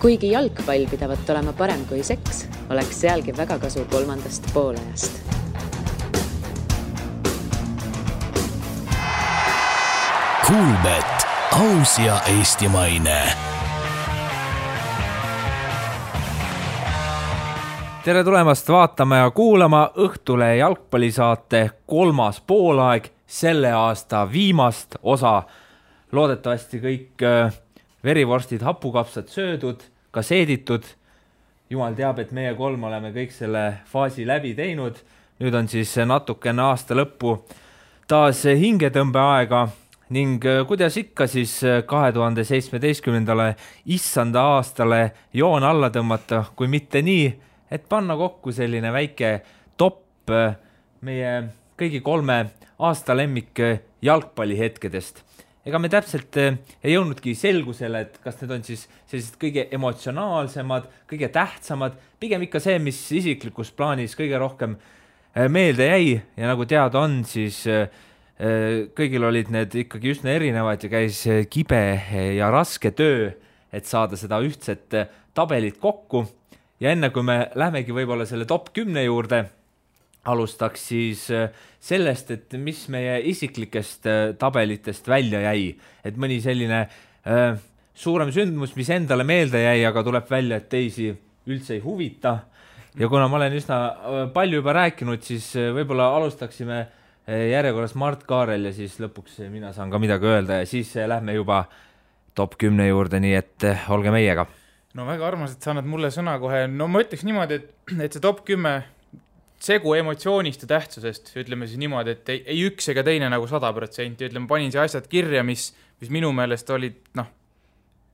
Kuigi jalgpall pidavat olema parem kui seks, oleks sealgi väga kasu kolmandast poolajast. Kuulbet, aus ja eestimaine. Tere tulemast vaatama ja kuulama Õhtule jalgpallisaate 3. poolaeg, selle aasta viimast osa. Loodetavasti kõik verivorstid, hapukapsad söödud, ka seeditud. Jumal teab, et meie 3 oleme kõik selle faasi läbi teinud. Nüüd on siis natukene aasta lõppu taas hingetõmbeaega ning kuidas ikka siis 2017. issanda aastale joon alla tõmmata, kui mitte nii, et panna kokku selline väike top meie kõigi 3 aasta lemmik jalgpallihetkedest. Ega me täpselt ei jõudnudki selgusele, et kas need on siis sellised kõige emotsionaalsemad, kõige tähtsamad, pigem ikka see, mis isiklikus plaanis kõige rohkem meelde jäi ja nagu teada on, siis kõigil olid need ikkagi üsna erinevad ja käis kibe ja raske töö, et saada seda ühtset tabelit kokku. Ja enne kui me lähmegi võib-olla selle top 10 juurde, alustaks siis sellest, et mis meie isiklikest tabelitest välja jäi. Et mõni selline suurem sündmus, mis endale meelde jäi, aga tuleb välja, et teisi üldse ei huvita. Ja kuna ma olen üsna palju juba rääkinud, siis võib-olla alustaksime järjekorras Mart Kaarel ja siis lõpuks mina saan ka midagi öelda ja siis lähme juba top 10 juurde, nii et olge meiega. No väga armas, et sa annad mulle sõna kohe. No ma ütleks niimoodi, et see top 10 segu emotsioonist ja tähtsusest, ütleme siis niimoodi, et ei üks ega teine nagu 100%, ütleme, panin see asjad kirja, mis minu meelest olid,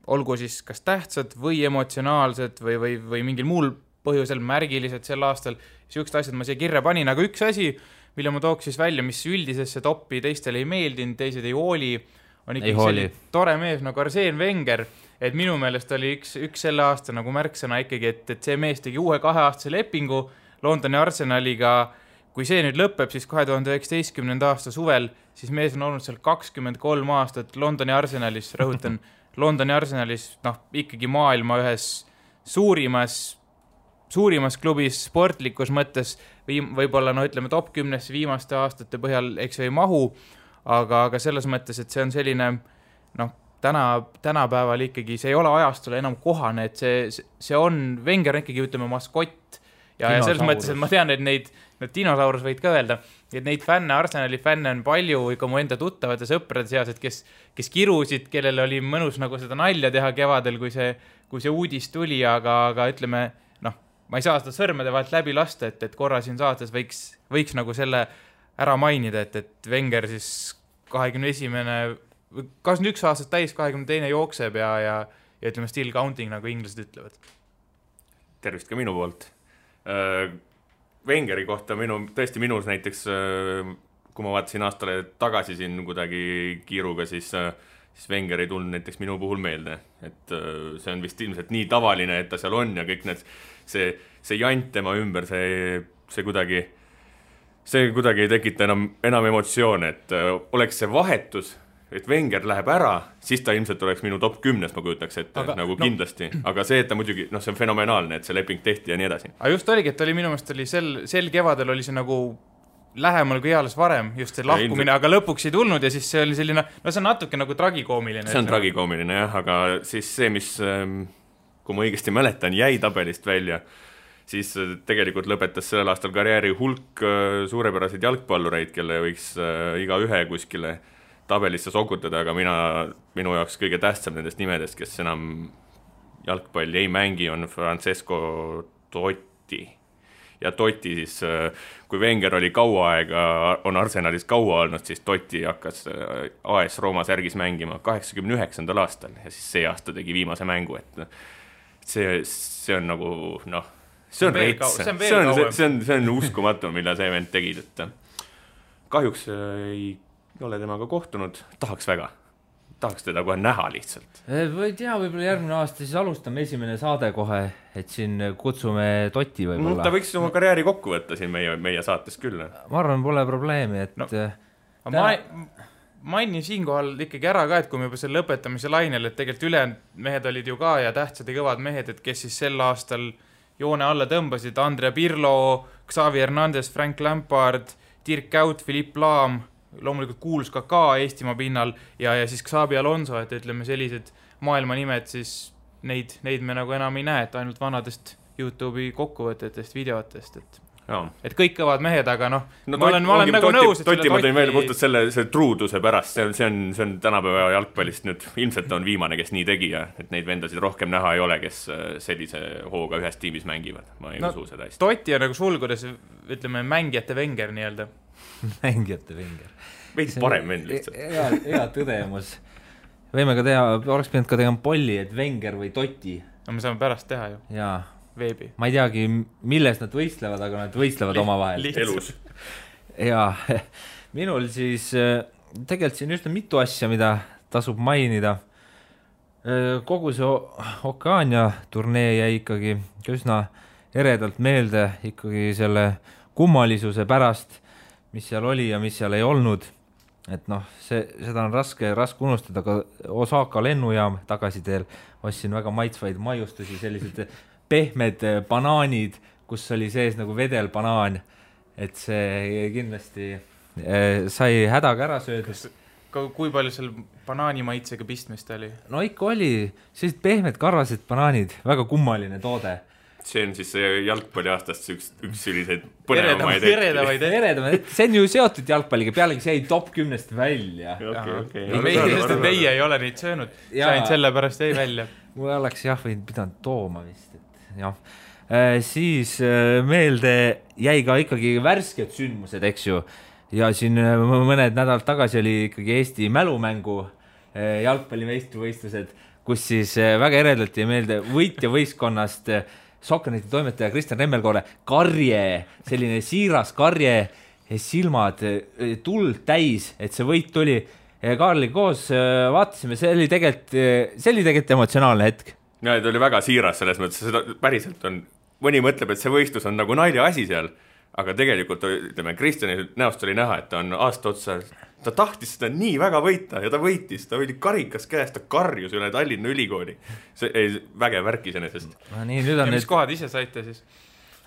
olgu siis kas tähtsad või emotsionaalsed või mingil muul põhjusel märgilised sel aastal, siuksed asjad ma siia kirja panin, aga üks asi, mille ma tooks siis välja, mis üldisesse topi teistele ei meeldinud, teised ei hooli, on ikkagi tore mees nagu Arsene Wenger, et minu meelest oli üks selle aasta nagu märksõna ikkagi, et see mees tegi uue 2-aastase lepingu Londoni Arsenaliga. Kui see nüüd lõpeb, siis 2019. aasta suvel, siis mees on olnud seal 23 aastat Londoni Arsenalis, rõhutan, Londoni Arsenalis, ikkagi maailma ühes suurimas klubis sportlikus mõttes, võib-olla, ütleme, top 10 viimaste aastate põhjal, eks ei mahu, aga selles mõttes, et see on selline, tänapäeval ikkagi, see ei ole ajastule enam kohane, et see on, Wenger ikkagi, ütleme, maskott, ja selles mõttes, et ma tean, et neid dinosaurus võid ka öelda, et neid fänne, Arsenali fänne on palju ikka mu enda tuttavate sõprade seas, et kes kirusid, kellel oli mõnus nagu seda nalja teha kevadel, kui see uudis tuli, aga ütleme, ma ei saa seda sõrmede vahelt läbi lasta, et korra siin saates võiks nagu selle ära mainida, et Wenger siis 21 aastat täis, 22 jookseb ja ütleme still counting, nagu inglased ütlevad. Tervist ka minu poolt. Wengeri kohta tõesti minus näiteks, kui ma vaatasin aastale tagasi siin kuidagi kiiruga, siis Wenger ei tulnud näiteks minu puhul meelde. Et see on vist ilmselt nii tavaline, et ta seal on ja kõik see jant tema ümber, see kuidagi ei tekita enam emotsioone, et oleks see vahetus, et Wenger läheb ära, siis ta ilmselt oleks minu top 10, ma kujutaks, et nagu kindlasti. Aga see, et ta muidugi, see on fenomenaalne, et see leping tehti ja nii edasi. Aga just oligi, et minu meelest oli sel kevadel oli see nagu lähemal kui eales varem, just see lahkumine, aga lõpuks ei tulnud ja siis see oli selline, see on natuke nagu tragikoomiline. See on tragikoomiline, jah, aga siis see, mis, kui ma õigesti mäletan, jäi tabelist välja, siis tegelikult lõpetas sellel aastal karjääri hulk suurepäraseid jalgpallureid, kelle võiks iga ühe kuskile tabelisse sokutada, aga minu jaoks kõige tähtsam nendest nimedest, kes enam jalgpalli ei mängi, on Francesco Totti. Ja Totti siis, kui Wenger oli kaua aega, on Arsenalis kaua olnud, siis Totti hakkas AS Rooma särgis mängima 89. aastal ja siis see aasta tegi viimase mängu, et see on nagu, see on reits, see on uskumatu, mille see vend tegid, et kahjuks ei ole temaga kohtunud, tahaks teda kohe näha lihtsalt. Või tea, võib-olla järgmine aasta siis alustame esimene saade kohe, et siin kutsume Totti võib-olla. Ta võiks oma karjääri kokku võtta siin meie saates küll. Ma arvan, pole probleemi, et... mainin siinkohal ikkagi ära ka, et kui me juba selle lõpetamise lainel, et tegelikult ülejäänud mehed olid ju ka ja tähtsad ja kõvad mehed, et kes siis sel aastal joone alla tõmbasid, Andrea Pirlo, Xavi Hernandez, Frank Lampard, Dirk Kuyt, Philippe Lahm, loomulikult kuulus ka Eestimaa pinnal ja siis Xabi Alonso, et ütleme sellised maailmanimed, siis neid me nagu enam ei näe, et ainult vanadest YouTube'i kokkuvõtetest, videotest, et kõik kõvad mehed, aga ma olen nagu nõus, et Toti ma tõin välja puhtalt selle truuduse pärast, see on tänapäeva jalgpallist nüüd, ilmselt on viimane, kes nii tegi ja et neid vendasid rohkem näha ei ole, kes sellise hooga ühes tiimis mängivad, ma ei usu seda hästi. Toti on nagu sulgudes, ütleme, mängijate Wenger nii-öelda. Mängijate Wenger. Veidi parem vend lihtsalt. Hea tõdemus. Võime ka teha, oleks pidanud ka tegema polli, et Wenger või Toti. No me saame pärast teha ju. Jaa. Veebi. Ma ei teagi, milles nad võistlevad, aga nad võistlevad omavahel. Elus. Ja minul siis tegelikult siin üsna mitu asja, mida tasub mainida. Kogu see Okeania turnee jäi ikkagi üsna eredalt meelde ikkagi selle kummalisuse pärast, mis seal oli ja mis seal ei olnud. Et seda on raske unustada, aga Osaka lennujaam tagasiteel ostsin väga maitsvaid maiustusi, sellised pehmed banaanid, kus oli sees nagu vedelbanaan, et see kindlasti sai hädaga ära söödus. Kui palju seal banaani maitsega pistmist oli? No ikka oli, sellised pehmed karvased banaanid, väga kummaline toode. See on siis jalgpalli aastast üks selliseid põnevamaid eredamaid. See on ju seotud jalgpalliga, pealegi see jäi top 10 välja. Meie ei ole neid söönud, sain selle pärast jäi välja. Mul oleks võinud pidanud tooma vist. Siis meelde jäi ka ikkagi värsked sündmused, eks ju. Ja siin mõned nädalad tagasi oli ikkagi Eesti mälumängu jalgpallimeistrivõistlused, kus siis väga eredalt jäi meelde võitja võistkonnast Sokkerneti toimetaja Kristjan Remmelkoore karje, selline siiras karje, silmad tuld täis, et see võit tuli. Kaarli koos vaatasime, see oli tegelikult emotsionaalne hetk. Ja, ta oli väga siiras selles mõttes, seda päriselt on, mõni mõtleb, et see võistlus on nagu nalja asi seal, aga tegelikult, ütleme, Kristjani näost oli näha, et ta on aasta otsa, ta tahtis seda nii väga võita ja ta võitis, ta oli karikas käest, ta karjus üle Tallinna ülikooli. See ei vägev värk iseenesest. Ja mis kohad ise saite siis?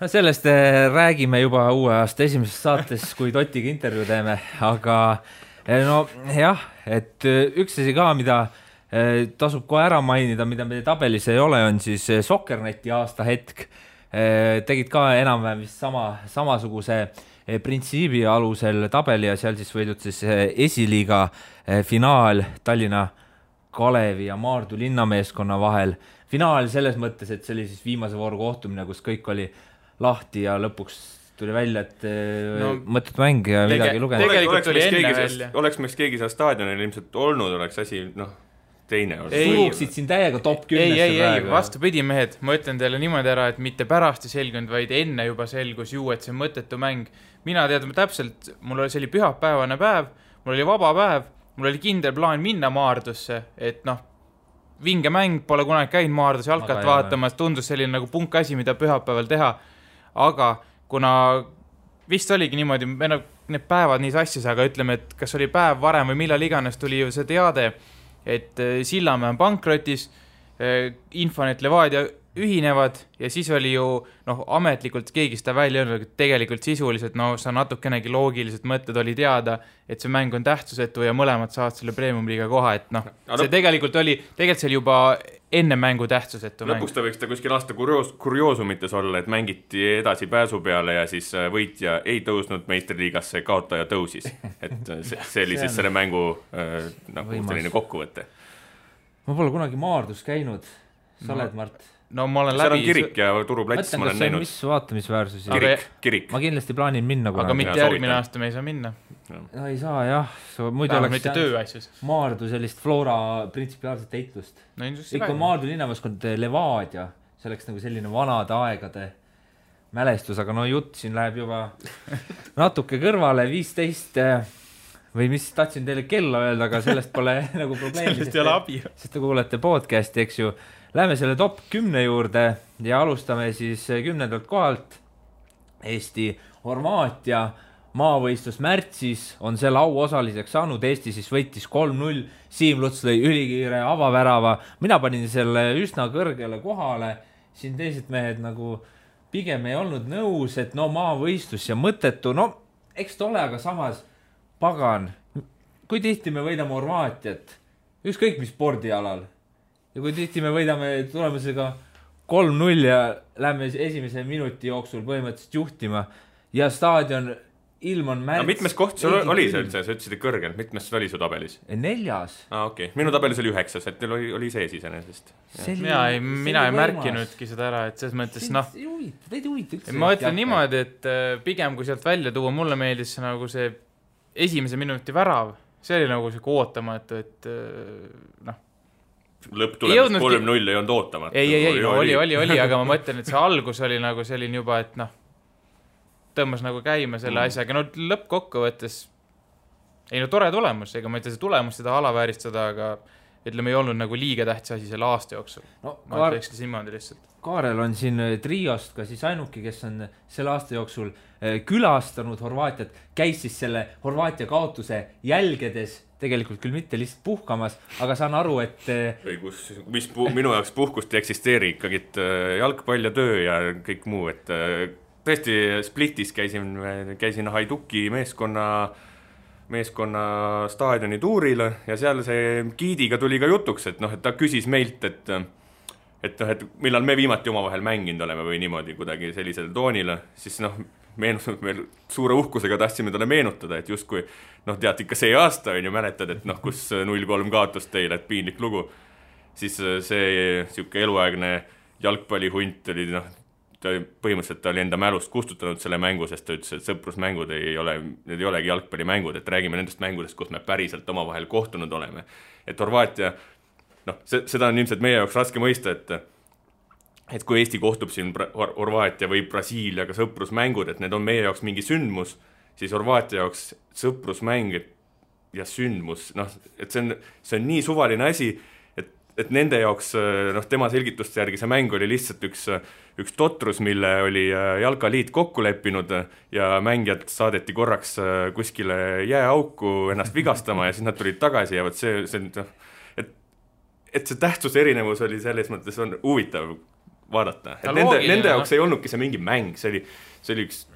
Sellest räägime juba uue aasta esimeses saates, kui Totiga intervjuu teeme, aga et üks asi ka, mida tasub kohe ära mainida, mida meie tabelis ei ole, on siis Sokkerneti aasta hetk. Tegid ka enam-vähem vist samasuguse printsiibi alusel tabeli ja seal siis võidud siis esiliiga finaal Tallinna Kalevi ja Maardu linnameeskonna vahel. Finaal selles mõttes, et see oli siis viimase vooru kohtumine, kus kõik oli lahti ja lõpuks tuli välja, et mõtted mäng ja midagi lugenud. Tegelikult oli enne välja. Oleks meil keegi seal staadionil ilmselt olnud, oleks asi, teine olnud. Suruksid siin täiega top 10. Ei, vastupidi mehed, ma ütlen teile niimoodi ära, et mitte pärast ei selgunud, vaid enne juba selgus ju, et see mõttetu mäng. Mina teadma täpselt, mul oli selline pühapäevane päev, mul oli vaba päev, mul oli kindel plaan minna Maardusse, et vinge mäng, pole kunagi käinud Maardus jalkat vaatamas, tundus selline nagu punk asi, mida pühapäeval teha, aga kuna vist oligi niimoodi, need päevad nii sassis, aga ütleme, et kas oli päev varem või millal iganes tuli ju see teade, et Sillamäe on pankrotis, Infonet Levadia ühinevad ja siis oli ju ametlikult keegi seda välja öelnud, et tegelikult sisuliselt sa natukenegi loogiliselt mõtted oli teada, et see mäng on tähtsusetu ja mõlemad saavad selle premium-liiga koha, et see tegelikult oli see juba enne mängu tähtsusetu mäng. Lõpuks ta võiks ta kuskil aasta kurioosumites olla, et mängiti edasi pääsu peale ja siis võitja ei tõusnud meistriliigasse, kaotaja tõusis. Et see oli siis selle mängu selline kokkuvõte. Ma pole kunagi Maardus käinud. Sa oled, Mart? No ma olen läbi. Seal on kirik ja turuplats ma olen näinud. Mis vaatamisväärsusi? Kirik. Ma kindlasti plaanin minna kunagi. Aga mitte järgmine aasta me ei saa minna. No ei saa, jah. Muidu oleks Maardu sellist Flora printsipiaalset eitlust. Ikka Maardu linnameeskond Levadia. See oleks nagu selline vanade aegade mälestus, aga jutt siin läheb juba natuke kõrvale 15 või mis tahtsin teile kella öelda, aga sellest pole nagu probleemi. Sellest ei ole abi. Sest te kuulete podcasti, eks ju. Läheme selle top 10 juurde ja alustame siis 10. kohalt. Eesti Horvaatia maavõistlus märtsis, on selle au osaliseks saanud, Eesti siis võitis 3-0, Siim Luts lõi ülikiire avavärava, mina panin selle üsna kõrgele kohale, siin teised mehed nagu pigem ei olnud nõus, et no maavõistlus ja mõttetu, no eks ta ole, aga samas pagan, kui tihti me võidame Horvaatiat, ükskõik mis spordialal, ja kui tihti me võidame tulemusega 3-0 ja lähme esimese minuti jooksul põhimõtteliselt juhtima ja staadion ilm on märts. No mitmes koht sul oli see üldse, sa ütlesid kõrgel, mitmes oli su tabelis? 4. Okei. Minu tabelis oli 9, et teil oli sees iseenesest. Mina ei märkinudki seda ära, et selles mõttes Teid huvita üldse. Ma ütlen niimoodi, et pigem kui sealt välja tuua, mulle meeldis nagu see esimese minuti värav, see oli nagu see ootamatu, et noh. Lõpptulemus 3-0 ei olnud ootamatu. Ei, oli, aga ma mõtlen, et see algus oli nagu selline juba, et noh, tõmmas nagu käima selle asjaga, no lõppkokkuvõttes ei no tore tulemus, ega ma ei tea see tulemus seda alavääristada, aga ütleme ei olnud nagu liiga tähtis asi selle aasta jooksul. No, ma ütlekski simmoodi lihtsalt. Kaarel on siin Triost ka siis ainuki, kes on selle aasta jooksul külastanud Horvaatiat, käis siis selle Horvaatia kaotuse jälgedes, tegelikult küll mitte lihtsalt puhkamas, aga saan aru, et minu jaoks puhkust ei eksisteeri ikkagi jalgpall ja töö ja kõik muu, et tõesti Splitis käisin Haiduki meeskonna staadioni tuuril ja seal see giidiga tuli ka jutuks, et noh, et ta küsis meilt, et millal me viimati omavahel mänginud oleme või niimoodi kuidagi sellisel toonil, siis noh, meil suure uhkusega tahtsime talle meenutada, et justkui noh, tead ikka see aasta on ju mäletad, et noh, kus 0-3 kaotus teile, et piinlik lugu, siis see siuke eluaegne jalgpallihunt oli noh, põhimõtteliselt ta oli enda mälust kustutanud selle mängu, sest ta ütles, et sõprusmängud need ei olegi jalgpallimängud, et räägime nendest mängudest, kus me päriselt omavahel kohtunud oleme. Et Horvaatia, noh, seda on ilmselt meie jaoks raske mõista, et kui Eesti kohtub siin Horvaatia või Brasiiliaga sõprusmängud, et need on meie jaoks mingi sündmus, siis Horvaatia jaoks sõprusmäng ja sündmus, noh, et see on nii suvaline asi, et nende jaoks, noh, tema selgituste järgi see mäng oli lihtsalt üks totrus, mille oli jalkaliit kokku leppinud ja mängijad saadeti korraks kuskile jääauku ennast vigastama ja siis nad tulid tagasi ja võt see noh, et see tähtsuse erinevus oli selles mõttes on huvitav vaadata. Et nende jaoks ei olnudki see mingi mäng, see oli üks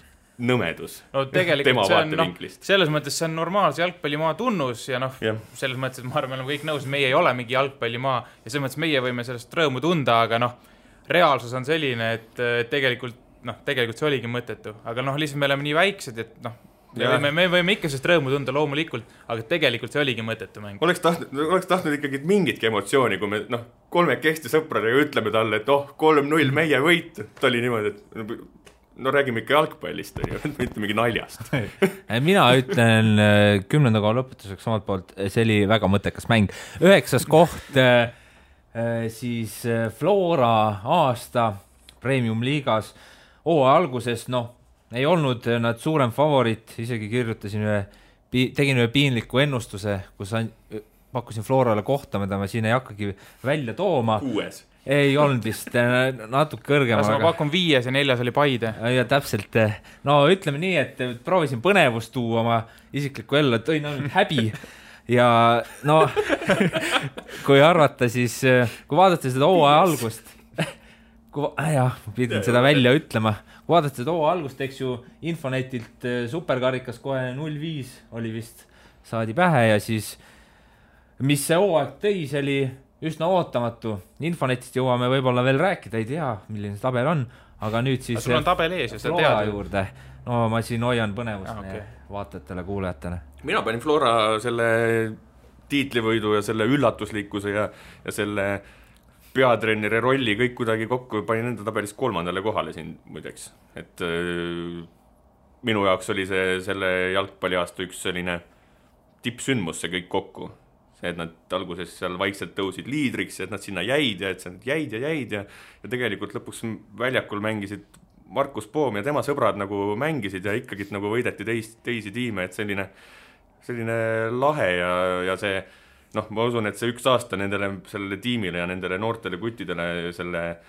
nõmedus. No tegelikult see on, noh, selles mõttes see on normaalse jalgpallimaa tunnus ja noh, selles mõttes, et ma arvan, me oleme kõik nõus, meie ei ole mingi jalgpallimaa ja selles mõttes meie võime sellest rõõmu tunda, aga noh, reaalsus on selline, et tegelikult see oligi mõttetu, aga noh, lihtsalt me oleme nii väiksed, et noh, me võime ikka sellest rõõmu tunda loomulikult, aga tegelikult see oligi mõttetu mäng. Oleks tahtnud ikkagi mingitki emotsiooni, kui me noh, kolmekesti sõpradega ütleme talle, et 3-0 meie võit, ta oli niimoodi, et no räägime ikka jalgpallist, mitte mingi naljast. Mina ütlen 10. koha lõpetuseks omalt poolt, see oli väga mõttekas mäng. 9. koht siis Flora aasta Premium liigas alguses, noh, ei olnud nad suurem favorit, isegi tegin ühe piinliku ennustuse, kus pakkusin Florale kohta, mida ma siin ei hakkagi välja tooma. 6. Ei olnud vist natuke kõrgema. Ma pakun 5 ja 4 oli Paide. Ja täpselt, no ütleme nii, et proovisin põnevust tuua oma isiklikku ellu, et tõin ainult häbi ja no kui arvata, siis kui vaadata seda hooaja algust, pidin seda välja ütlema, kui vaadata seda hooaja algust, eks ju Infonetilt superkarikas kohe 0-5 oli vist, saadi pähe ja siis mis see hooaeg tõi, see oli üsna ootamatu. Infonetist jõuame võib-olla veel rääkida, ei tea, milline see tabel on, aga nüüd siis sul on tabel ees ja seda Flora juurde. No ma siin hoian põnevust vaatajatele, kuulajatele. Mina panin Flora selle tiitlivõidu ja selle üllatuslikkuse ja selle peatreeneri rolli kõik kuidagi kokku, panin enda tabelis 3. kohale siin muideks. Et minu jaoks oli selle jalgpalliaasta üks selline tippsündmus see kõik kokku. Et nad alguses seal vaikselt tõusid liidriks, et nad sinna jäid ja tegelikult lõpuks väljakul mängisid Markus Poom ja tema sõbrad nagu mängisid ja ikkagi nagu võideti teisi tiime, et selline lahe ja see, noh, ma usun, et see üks aasta sellele tiimile ja nendele noortele kuttidele selle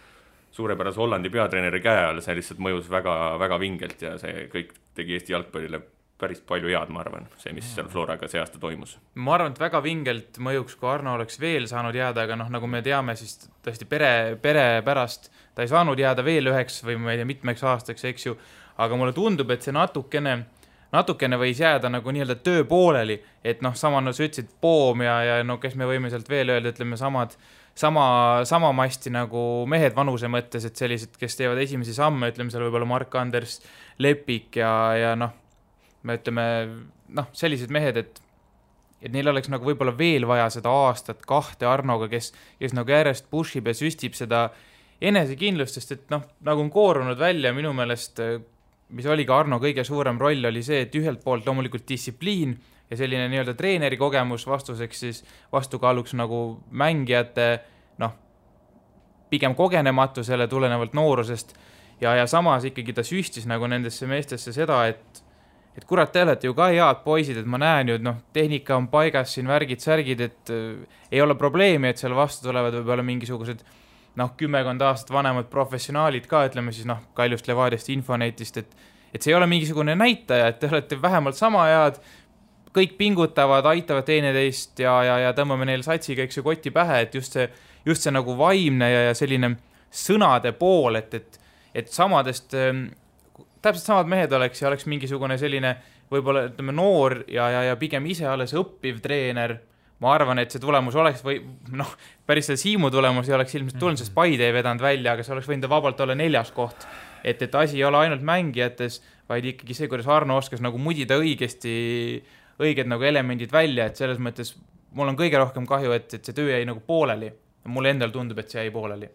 suurepärase Hollandi peatreeneri käe all, see lihtsalt mõjus väga, väga vingelt ja see kõik tegi Eesti jalgpallile päris palju head, ma arvan, see, mis seal Floraga see aasta toimus. Ma arvan, et väga vingelt mõjuks, kui Arno oleks veel saanud jääda, aga nagu me teame, siis tõesti pere pärast ta ei saanud jääda veel üheks või ma ei tea, mitmeks aastaks, eks ju, aga mulle tundub, et see natukene võis jääda nagu nii-öelda töö pooleli, et sama sa ütlesid Poom ja kes me võime sealt veel öelda, ütleme sama masti nagu mehed vanuse mõttes, et sellised, kes teevad esimesi samme, ütleme seal võib-olla Mark-Anders Lepik ja me ütleme, sellised mehed, et neil oleks nagu võib-olla veel vaja seda aastat kahte Arnoga, kes nagu järjest pushib ja süstib seda enesekindlust, sest et nagu on koorunud välja minu meelest, mis oli ka Arno kõige suurem roll, oli see, et ühelt poolt loomulikult distsipliin ja selline nii-öelda treeneri kogemus vastuseks siis vastukaaluks nagu mängijate pigem kogenematusele tulenevalt noorusest ja samas ikkagi ta süstis nagu nendesse meestesse seda, et kurat, te olete ju ka head poisid, et ma näen ju, tehnika on paigas siin värgid-särgid, et ei ole probleemi, et seal vastu tulevad võib-olla mingisugused 10 aastat vanemad professionaalid ka, ütleme siis Kaljust Levadiast, Infonetist, et see ei ole mingisugune näitaja, et te olete vähemalt sama head, kõik pingutavad, aitavad teineteist ja tõmbame neile satsiga, eks ju, kotti pähe, et just see nagu vaimne ja selline sõnade pool, et samadest, täpselt samad mehed oleks mingisugune selline võib-olla ütleme noor ja pigem ise alles õppiv treener. Ma arvan, et see tulemus oleks või päris see Siimu tulemus ei oleks ilmselt tulnud, sest Paide ei vedanud välja, aga see oleks võinud vabalt olla 4. koht. Et asi ei ole ainult mängijates, vaid ikkagi see, kuidas Arno oskas nagu mudida õiged nagu elemendid välja, et selles mõttes mul on kõige rohkem kahju, et see töö jäi nagu pooleli. Mulle endal tundub, et see jäi pooleli.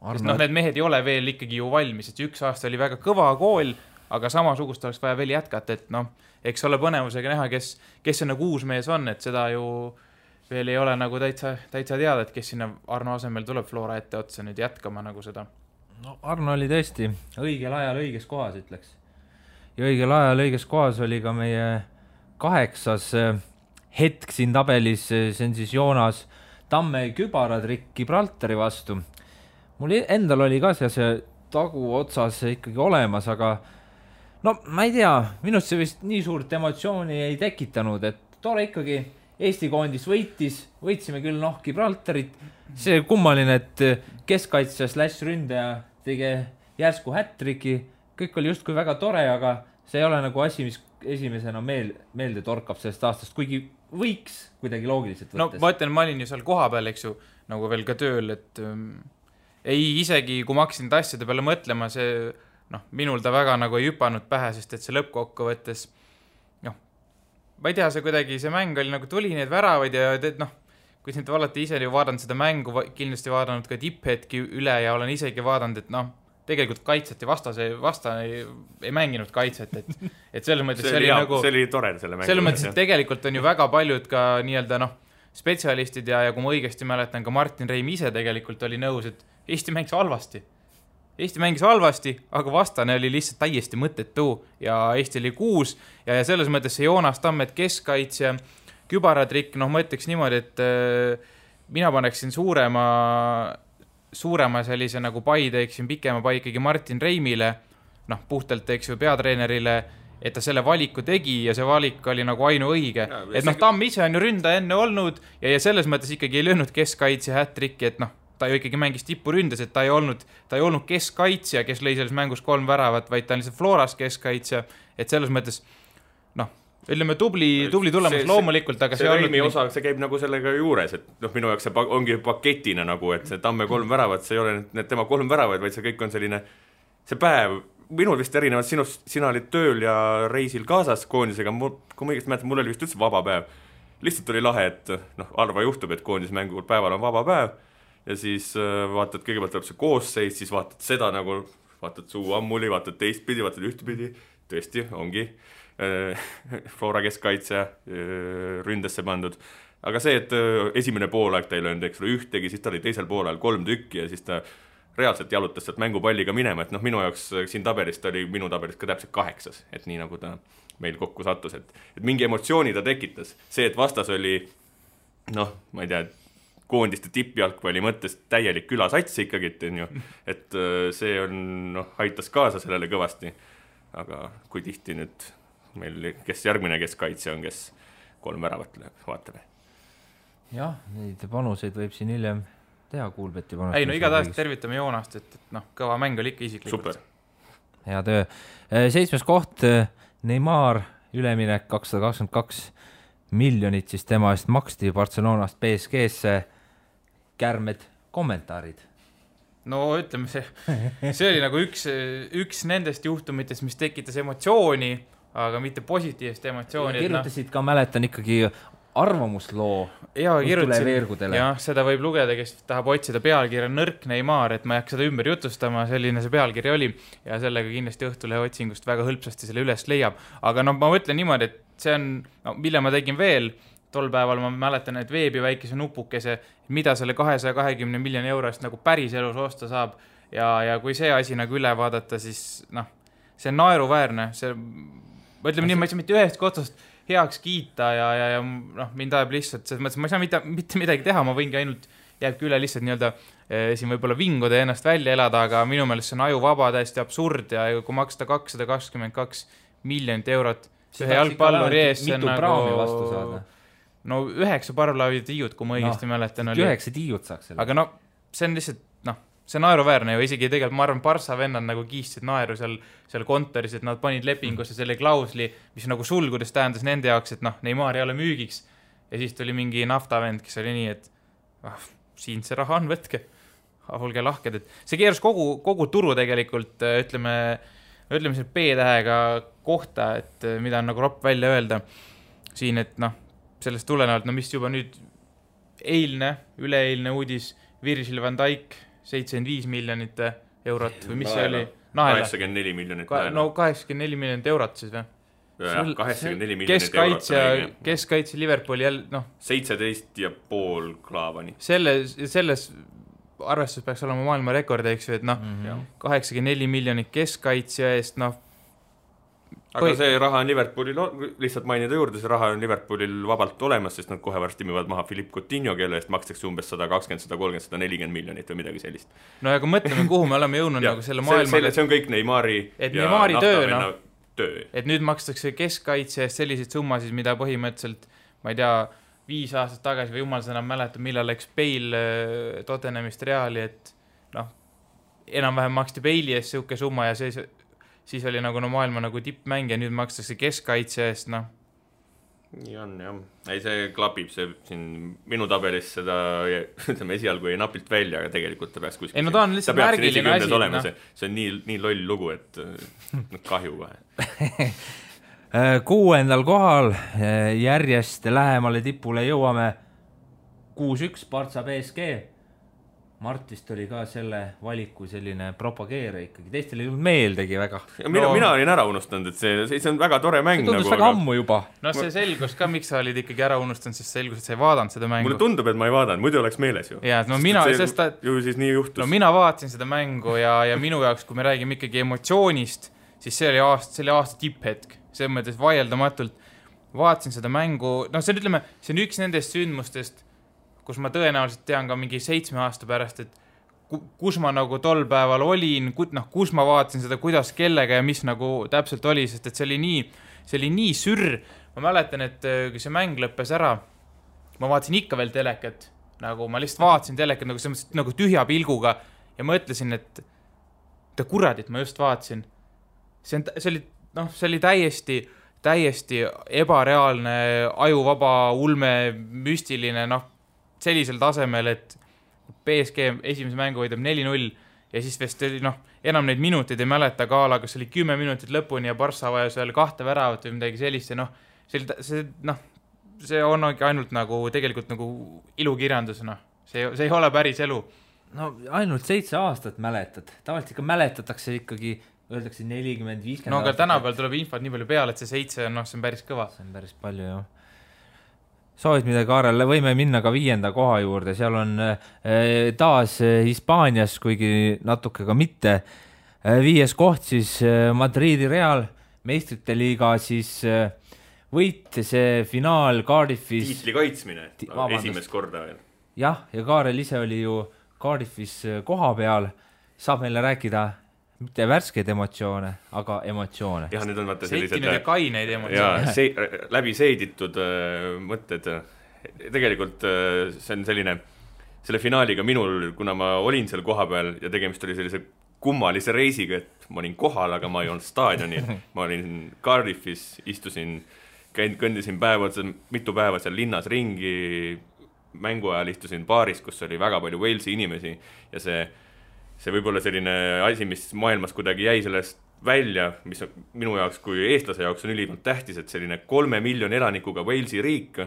Sest need mehed ei ole veel ikkagi ju valmis, et 1 aasta oli väga kõva kool, aga samasugust oleks vaja veel jätkata, et eks ole põnevusega näha, kes see nagu uus mees on, et seda ju veel ei ole nagu täitsa teada, et kes sinna Arno asemel tuleb Flora ette otsa nüüd jätkama nagu seda. Arno oli tõesti õigel ajal õiges kohas, ütleks. Ja õigel ajal õiges kohas oli ka meie 8. hetk siin tabelis, see on siis Joonas Tamme kübaratrikk Gibraltari vastu. Mul endal oli ka see tagu otsas ikkagi olemas, aga ma ei tea, minust see vist nii suurt emotsiooni ei tekitanud, et tore ikkagi Eesti koondis võitsime küll Gibraltarit, see kummaline, et keskkaitsja / ründaja tegi järsku hättriki, kõik oli justkui väga tore, aga see ei ole nagu asi, mis esimesena meelde torkab sellest aastast, kuigi võiks kuidagi loogiliselt võttes. Ma ütlen, ma olin ju seal koha peal, eks ju, nagu veel ka tööl, et isegi kui ma hakkasin asjade peale mõtlema, see minul ta väga nagu ei hüpanud pähe, sest et see lõppkokkuvõttes ma ei tea, see mäng oli nagu tuli need väravaid ja kui nüüd olete ise ju vaadanud seda mängu, kindlasti vaadanud ka tipphetki üle ja olen isegi vaadanud, et tegelikult kaitseti vastane ei mänginud kaitset, et selles mõttes see oli tore selle mängu. Selles mõttes, et tegelikult on ju väga paljud ka nii-öelda spetsialistid ja kui ma õigesti mäletan, ka Martin Reim ise tegelikult oli nõus, et Eesti mängis halvasti, aga vastane oli lihtsalt täiesti mõttetu ja Eesti oli 6 ja selles mõttes see Joonas Tammet keskkaitsja kübaratrikk, ma ütleks niimoodi, et mina paneksin suurema sellise nagu pai teeksin pikema pai ikkagi Martin Reimile, puhtalt teeks ju peatreenerile, et ta selle valiku tegi ja see valik oli nagu ainuõige. Et Tamm ise on ju ründaja enne olnud ja selles mõttes ikkagi ei löönud keskkaitsja hättrikki, et ta ju ikkagi mängis tipuründes, et ta ei olnud keskkaitsja, kes lõi selles mängus 3 väravat, vaid ta on lihtsalt Floras keskkaitsja, et selles mõttes, ütleme tubli tulemus loomulikult, aga see Reimi osa, see käib nagu sellega juures, et minu jaoks see ongi paketina nagu, et see Tamme 3 väravat, see ei ole need tema 3 väravat, vaid see kõik on selline, see päev, minul vist erinevalt sinust, sina olid tööl ja reisil kaasas koondisega, kui ma õigesti mäletan, mul oli vist üldse vaba päev. Lihtsalt oli lahe, et harva juhtub, et koondismängul päeval on vaba päev ja siis vaatad, kõigepealt tuleb see koosseis, siis vaatad seda nagu, vaatad suu ammuli, vaatad teistpidi, vaatad ühtpidi, tõesti, ongi Flora keskkaitsja ründesse pandud. Aga see, et esimene poolaeg ta ei löönud, eks ole, ühtegi, siis ta oli teisel poolajal 3 tükki ja siis ta reaalselt jalutas sealt mängupalliga minema, et minu jaoks siin tabelist oli minu tabelist ka täpselt 8, et nii nagu ta meil kokku sattus, et mingi emotsiooni ta tekitas. See, et vastas oli, ma ei tea, koondiste tippjalgpalli mõttes täielik külasats ikkagi, et see on, aitas kaasa sellele kõvasti. Aga kui tihti nüüd meil, kes järgmine keskkaitse on, kes 3 väravat lööb, vaatame. Jah, neid panuseid võib siin hiljem teha Kuulbeti panust. Ei, no igatahes tervitame Joonast, et kõva mäng oli ikka isiklikult. Super. Hea töö. 7. koht, Neymar, üleminek 222 miljonit, siis tema eest maksti Barcelonast PSG-sse. Kärmed kommentaarid. No ütleme, see oli nagu üks nendest juhtumitest, mis tekitas emotsiooni, aga mitte positiivset emotsiooni. Kirjutasid ka, mäletan ikkagi arvamusloo veergudele. Jah, seda võib lugeda, kes tahab otsida pealkirja Nõrk Neymar, et ma ei hakka seda ümber jutustama, selline see pealkiri oli ja sellega kindlasti Õhtulehe otsingust väga hõlpsasti selle üles leiab. Aga ma mõtlen niimoodi, et see on, mille ma tegin veel, tol päeval ma mäletan, et veebi väikese nupukese, mida selle 220 miljoni eurost nagu päris elus osta saab ja kui see asi nagu üle vaadata, siis see on naeruväärne, ma ütleme nii, ma ei saa mitte ühest kotsust heaks kiita ja mind ajab lihtsalt, selles mõttes ma ei saa mitte midagi teha, ma võingi ainult jääbki üle lihtsalt nii-öelda siin võib-olla vinguda ja ennast välja elada, aga minu meelest see on ajuvaba, täiesti absurd ja kui maksta 222 miljonit eurot ühe jalgpalluri ees, see on nagu no 9 parvlaavi tiiud, kui ma õigesti mäletan. 9 tiiud saaks selle. Aga see on lihtsalt, see on naeruväärne ju, isegi tegelikult ma arvan, Barca vennad nagu kiistsid naeru seal kontoris, et nad panid lepingusse selle klausli, mis nagu sulgudes tähendas nende jaoks, et Neymar ei ole müügiks. Ja siis tuli mingi naftavend, kes oli nii, et siin see raha on, võtke. Olge lahked, et see keeras kogu turu tegelikult, ütleme selle B-tähega kohta, et mida on nagu ropp välja öelda siin, et sellest tulenevalt, mis juba nüüd üleeilne uudis, Virgil van Dijk 75 miljonit eurot või mis see oli? 84 miljonit. No 84 miljonit eurot siis või? 84 miljonit eurot. Keskkaitse Liverpooli 17,5 klaavani. Selles arvestus peaks olema maailma rekord, eks ju, et 84 miljonit keskkaitse eest, aga see raha on Liverpoolil, lihtsalt mainida juurde, see raha on Liverpoolil vabalt olemas, sest nad kohe varsti müüvad maha Philippe Coutinho, kelle eest makstakse umbes 120, 130, 140 miljonit või midagi sellist. No aga mõtleme, kuhu me oleme jõudnud nagu selle maailma. See on kõik Neymari ja naftavenna töö. Et nüüd makstakse keskkaitse eest selliseid summasid, mida põhimõtteliselt, ma ei tea, 5 aastat tagasi või jumal seda mäletab, millal läks Bale Tottenhamist Reali, et enam-vähem maksti Bale'i eest siuke summa ja siis oli nagu maailma nagu tippmäng ja nüüd makstakse keskkaitse eest, Nii on, jah. Ei, see klapib, see siin minu tabelis seda, ütleme, esialgu ei napilt välja, aga tegelikult ta peaks kuskil. Ei, no ta on lihtsalt märgiline asi. See on nii loll lugu, et kahju kohe. 6. kohal järjest lähemale tipule jõuame 6-1 Barca PSG. Martist oli ka selle valiku selline propageere ikkagi. Teistel ei olnud meeldegi väga. Mina olin ära unustanud, et see on väga tore mäng. See tundus väga ammu juba. No see selgus ka, miks sa olid ikkagi ära unustanud, sest selgus, et sa ei vaadanud seda mängu. Mulle tundub, et ma ei vaadanud, muidu oleks meeles ju. Ja, ju siis nii juhtus. No mina vaatasin seda mängu ja minu jaoks, kui me räägime ikkagi emotsioonist, siis see oli aasta tipphetk. See mõttes vaieldamatult vaatasin seda mängu. See on üks nendest sündmustest, kus ma tõenäoliselt tean ka mingi 7 aasta pärast, et kus ma nagu tol päeval olin, kus ma vaatasin seda, kuidas kellega ja mis nagu täpselt oli, sest et see oli nii sürr. Ma mäletan, et kui see mäng lõppes ära, ma vaatasin ikka veel telekat, nagu ma lihtsalt vaatasin telekat nagu tühja pilguga ja mõtlesin, et kuradit ma just vaatasin. See oli täiesti ebareaalne, ajuvaba, ulme, müstiline, sellisel tasemel, et PSG esimese mängu võidab 4-0 ja siis vist oli, enam neid minuteid ei mäleta Kaala, kas oli 10 minutit lõpuni ja Barca vajas veel 2 väravat või midagi sellist ja see on ainult nagu tegelikult nagu ilukirjandus, see ei ole päris elu. No ainult 7 aastat mäletad, tavaliselt ikka mäletatakse ikkagi, öeldakse 40-50 no aga tänapäeval tuleb infot nii palju peale, et see 7 see on päris kõva. See on päris palju, jah. Soovid midagi, Kaarel, võime minna ka 5. koha juurde, seal on taas Hispaanias, kuigi natuke ka mitte. 5. koht siis Madridi Real, meistrite liiga siis võit, see finaal Cardiffis. Tiitli kaitsmine, esimest korda veel. Jah, ja Kaarel ise oli ju Cardiffis koha peal, saab meile rääkida, mitte värskeid emotsioone, aga emotsioone. Jah, need on vaata sellised... Seitinud ja kaineid emotsioone. Ja läbi seiditud mõtted. Tegelikult see on selline, selle finaaliga minul, kuna ma olin seal koha peal ja tegemist oli sellise kummalise reisiga, et ma olin kohal, aga ma ei olnud staadionil. Ma olin Cardiffis, istusin, kõndisin mitu päeva seal linnas ringi, mängu ajal istusin baaris, kus oli väga palju Walesi inimesi ja see võib-olla selline asi, mis maailmas kuidagi jäi sellest välja, mis minu jaoks kui eestlase jaoks on ülimalt tähtis, et selline 3 miljoni elanikuga Walesi riik,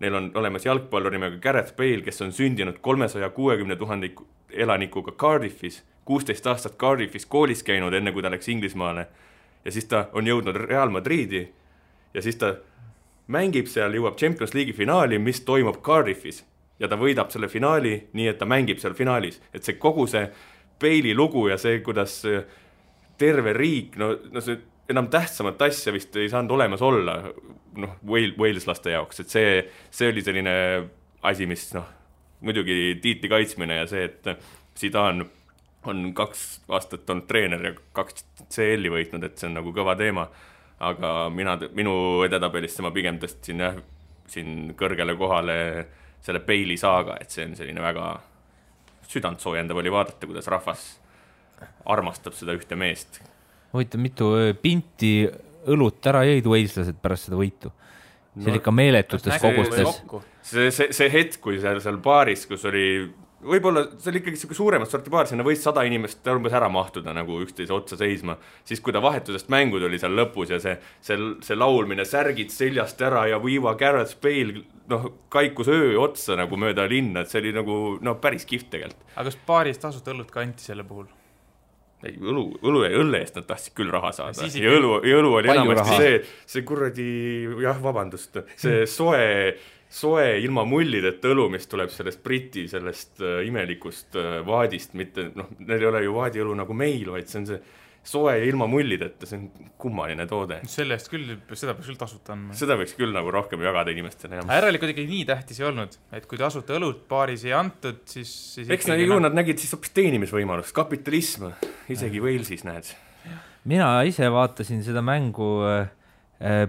neil on olemas jalgpallur nimega Gareth Bale, kes on sündinud 360 000 elanikuga Cardiffis, 16 aastat Cardiffis koolis käinud, enne kui ta läks Inglismaale. Ja siis ta on jõudnud Real Madridi ja siis ta mängib seal, jõuab Champions League'i finaali, mis toimub Cardiffis. Ja ta võidab selle finaali nii, et ta mängib seal finaalis. Et see kogu see Bale'i lugu ja see, kuidas terve riik, no see enam tähtsamat asja vist ei saanud olemas olla Waleslaste jaoks. Et see oli selline asi, mis muidugi tiitli kaitsmine ja see, et Zidane on 2 aastat olnud treener ja 2 CL-i võitnud, et see on nagu kõva teema. Aga minu edetabelist ma pigem tõstsin siin kõrgele kohale selle Bale'i saaga, et see on selline väga südant soojendav oli vaadata, kuidas rahvas armastab seda ühte meest. Huvitav, mitu pinti õlut ära jõid Waleslased pärast seda võitu? See oli ikka meeletutes kogustes. See hetk, kui seal baaris, kus oli võib-olla see oli ikkagi suuremat sorti baar, sinna võis 100 inimest umbes ära mahtuda nagu üksteise otsa seisma. Siis kui ta vahetusest mängud oli seal lõpus ja see laulmine, särgid seljast ära ja viiva Gareth Bale kaikus öö otsa nagu mööda linna, et see oli nagu päris kihvt tegelikult. Aga kas baaris tasuta õlut kanti selle puhul? Ei, õlle eest nad tahtsid küll raha saada. Ja õlu oli enamasti see kuradi, vabandust, see soe ilma mullideta õlu, mis tuleb sellest Briti, sellest imelikust vaadist, mitte, neil ei ole ju vaadiõlu nagu meil, vaid see on see soe ilma mullideta, see on kummaline toode. Selle eest küll, seda peaks küll tasuta andma. Seda võiks küll nagu rohkem jagada inimestele. Järelikult ikkagi nii tähtis ei olnud, et kui tasuta õlut baaris ei antud, siis eks nad nägid siis hoopis teenimisvõimalust, kapitalism, isegi Walesis näed. Mina ise vaatasin seda mängu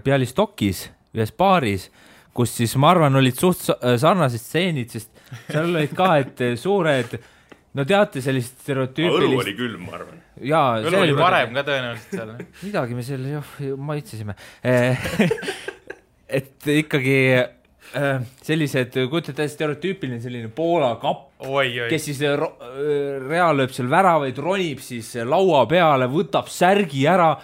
Bialystokis, ühes baaris, kus siis ma arvan olid suht sarnased stseenid, sest seal olid ka, et suured, no teate sellist stereotüüpilist... Õlu oli külm, ma arvan. Õlu oli varem ka tõenäoliselt seal. Midagi me selle maitsesime. Et ikkagi sellised, kujutate stereotüüpiline selline Poola kapp, kes siis Real lööb seal väravaid, ronib siis laua peale, võtab särgi ära,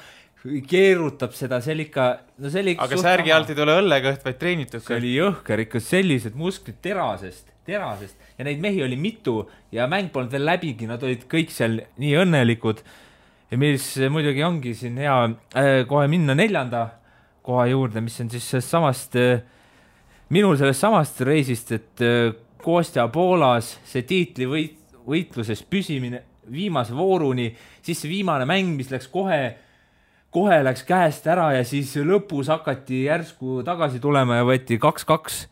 keerutab seda, see oli ikka... No see oli ikka aga särgi alt ei tule õllekõht, vaid treenitud. See oli jõhker, ikka sellised musklid terasest ja neid mehi oli mitu ja mäng polnud veel läbigi, nad olid kõik seal nii õnnelikud ja mis muidugi ongi siin hea kohe minna 4. koha juurde, mis on siis samast, minul sellest samast reisist, et Kostja Poolas see tiitli võitluses püsimine viimase vooruni, siis see viimane mäng, mis läks kohe läks käest ära ja siis lõpus hakati järsku tagasi tulema ja võeti 2-2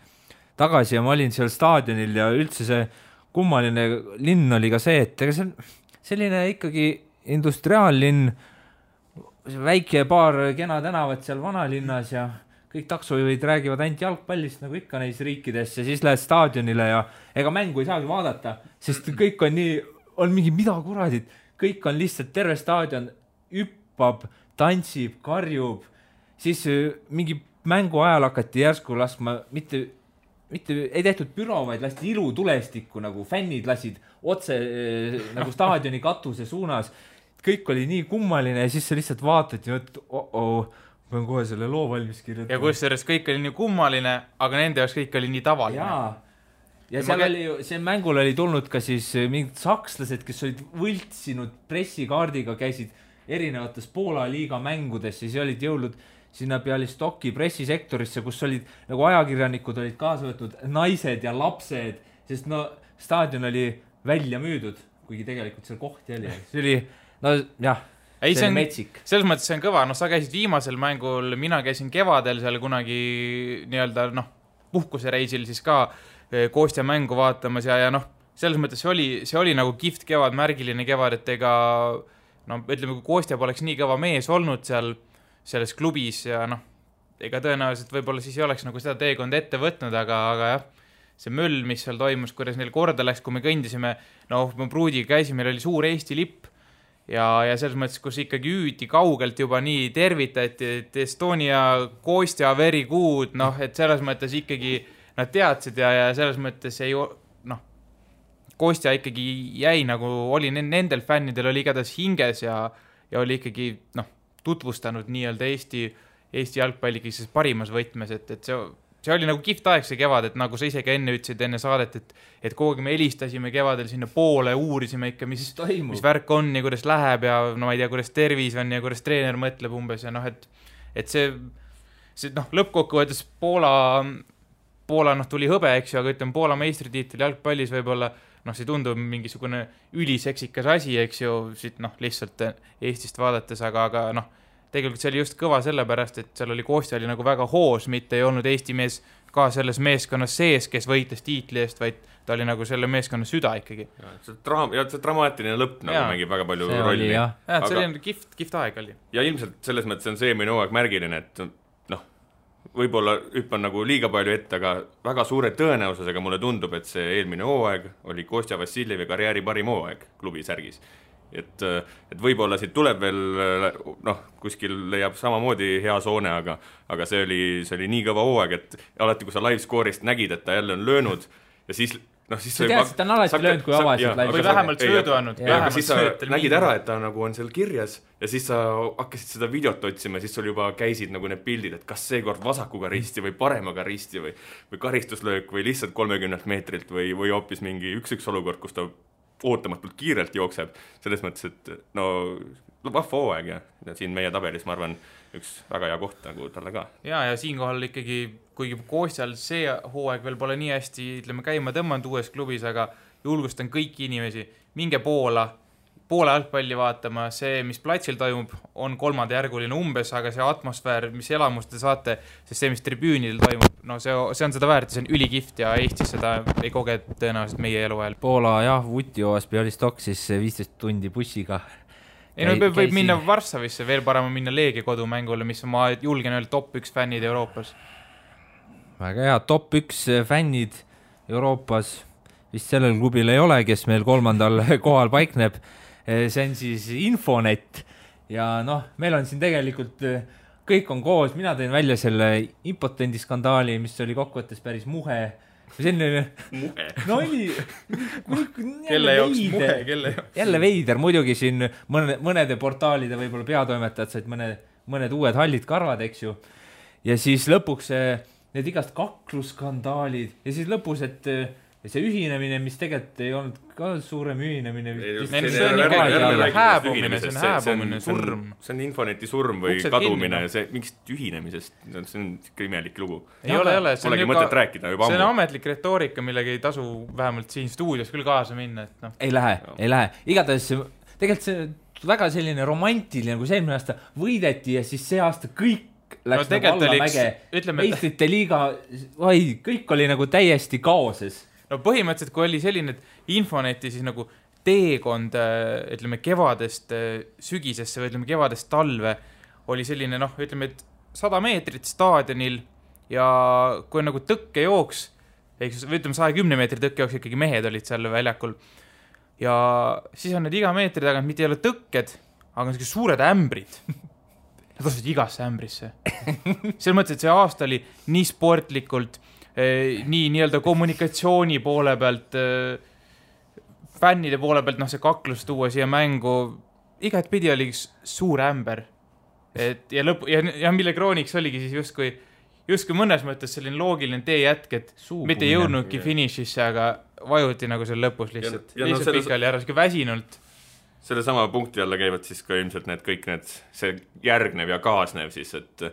tagasi ja ma olin seal staadionil ja üldse see kummaline linn oli ka see, et see on selline ikkagi industriaallinn, väike paar kena tänavat seal vanalinnas ja kõik taksojuhid räägivad ainult jalgpallist nagu ikka neis riikides ja siis lähed staadionile ja ega mängu ei saagi vaadata, sest kõik on nii, on mingi mida kuradid, kõik on lihtsalt terve staadion hüppab, tantsib, karjub, siis mingi mängu ajal hakati järsku laskma, mitte ei tehtud büro, vaid lasti ilutulestikku, nagu fännid lasid otse nagu staadioni katuse suunas. Kõik oli nii kummaline ja siis sa lihtsalt vaatad ja pean kohe selle loo valmis kirjutama. Ja kusjuures kõik oli nii kummaline, aga nende jaoks kõik oli nii tavaline. Ja seal oli, see mängul oli tulnud ka siis mingid sakslased, kes olid võltsinud pressikaardiga, käisid erinevates Poola liiga mängudes, siis olid jõudnud sinna Bialystoki pressisektorisse, kus olid nagu ajakirjanikud olid kaasa võtnud naised ja lapsed, sest staadion oli välja müüdud, kuigi tegelikult seal kohti oli. See oli, see oli metsik. Selles mõttes see on kõva, sa käisid viimasel mängul, mina käisin kevadel seal kunagi nii-öelda puhkusereisil siis ka Kostja mängu vaatamas ja selles mõttes see oli nagu kihvt kevad, märgiline kevad, et ega no ütleme, kui Kostja poleks nii kõva mees olnud seal selles klubis ja noh, ega tõenäoliselt võib-olla siis ei oleks nagu seda teekonda ette võtnud, aga jah, see möll, mis seal toimus, kuidas neil korda läks, kui me kõndisime, me pruudiga käisime, meil oli suur Eesti lipp ja selles mõttes, kus ikkagi hüüti kaugelt juba nii tervitati, et Estonia, Kostja, very good, et selles mõttes ikkagi nad teadsid ja selles mõttes ei, Kostja ikkagi jäi nagu, oli nendel fännidel oli igatahes hinges ja oli ikkagi, tutvustanud nii-öelda Eesti jalgpalligi siis parimas võtmes, et see oli nagu kihvt aeg see kevad, et nagu sa ise ka enne ütlesid enne saadet, et kogu me helistasime kevadel sinna poole, uurisime ikka, mis värk on ja kuidas läheb ja no ma ei tea, kuidas tervis on ja kuidas treener mõtleb umbes ja et see lõppkokkuvõttes Poola tuli hõbe, eks ju, aga ütleme Poola meistritiitel jalgpallis võib-olla see tundub mingisugune üliseksikas asi, eks ju, siit lihtsalt Eestist vaadates, aga tegelikult see oli just kõva sellepärast, et seal oli Kostja oli nagu väga hoos, mitte ei olnud Eesti mees ka selles meeskonnas sees, kes võitles tiitli eest, vaid ta oli nagu selle meeskonna süda ikkagi. See dramaatiline lõpp nagu mängib väga palju rolli. See oli kihvt aeg oli. Ja ilmselt selles mõttes on see eelmine hooaeg märgiline, et võib-olla hüppan nagu liiga palju ette, aga väga suure tõenäosusega mulle tundub, et see eelmine hooaeg oli Kostja Vassiljevi karjääri parim hooaeg klubi särgis. Et võib-olla siit tuleb veel, kuskil leiab samamoodi hea soone, aga see oli nii kõva hooaeg, et alati, kui sa live-score'ist nägid, et ta jälle on löönud ja siis sa tead, et ta on alati löönud, kui avasid või vähemalt söödu andnud. Aga siis sa nägid ära, et ta nagu on seal kirjas ja siis sa hakkasid seda videot otsima, siis sul juba käisid nagu need pildid, et kas seekord vasakuga risti või paremaga risti või karistuslöök või lihtsalt 30 meetrilt või hoopis mingi üks olukord, kus ta ootamatult kiirelt jookseb. Selles mõttes, et vahva hooaeg ja siin meie tabelis, ma arvan, üks väga hea koht nagu talle ka. Ja siinkohal ikkagi, kuigi Kostjal see hooaeg veel pole nii hästi, ütleme, käima tõmmanud uues klubis, aga julgustan kõiki inimesi, minge Poola jalgpalli vaatama, see, mis platsil toimub, on kolmandajärguline umbes, aga see atmosfäär, mis elamust te saate, sest see, mis tribüünil toimub, see on seda väärt, see on ülikift ja Eestis seda ei koge tõenäoliselt meie eluajal. Poola, Vutjovas Bialystok siis 15 tundi bussiga. Võib minna Varssavisse, veel parema minna Leegia kodumängule, mis ma julgen öelda top 1 fännid Euroopas. Väga hea, top 1 fännid Euroopas vist sellel klubil ei ole, kes meil 3. kohal paikneb. See on siis Infonet ja meil on siin tegelikult kõik on koos, mina tõin välja selle impotendi skandaali, mis oli kokkuvõttes päris muhe. Muhe? No oli kelle jaoks muhe, kelle jaoks? Jälle veider, muidugi siin mõnede portaalide võib-olla peatoimetajad said mõned uued hallid karvad, eks ju. Ja siis lõpuks need igast kaklusskandaalid ja siis lõpus, et see ühinemine, mis tegelikult ei olnud ka suurem ühinemine. See on hääbumine, surm. See on Infoneti surm või kadumine, see mingist ühinemisest, see on imelik lugu. Ei ole. Polegi mõtet rääkida juba ammu. See on ametlik retoorika, millega ei tasu vähemalt siin stuudios küll kaasa minna. Ei lähe. Igatahes tegelikult see väga selline romantiline, kui see eelmine aasta võideti ja siis see aasta kõik läks nagu allamäge. Meistrite liiga, kõik oli nagu täiesti kaoses. No põhimõtteliselt, kui oli selline Infoneti siis nagu teekond, ütleme, kevadest sügisesse või ütleme, kevadest talve, oli selline, ütleme, et 100 meetrit staadionil ja kui on nagu tõkkejooks, või ütleme, 110 meetri tõkkejooks, ikkagi mehed olid seal väljakul. Ja siis on need iga meetri tagant, mitte ei ole tõkked, aga on suured ämbrid. Nad asusid igasse ämbrisse. Selles mõttes, et see aasta oli nii sportlikult, nii nii-öelda kommunikatsiooni poole pealt, fännide poole pealt, see kaklus tuua siia mängu, igat pidi oli suur ämber. Ja mille krooniks oligi siis justkui mõnes mõttes selline loogiline teejätk, et mitte jõudnudki finišisse, aga vajuti nagu seal lõpus lihtsalt. Lihtsalt pikali ära, väsinult. Selle sama punkti alla käivad siis ka ilmselt see järgnev ja kaasnev siis, et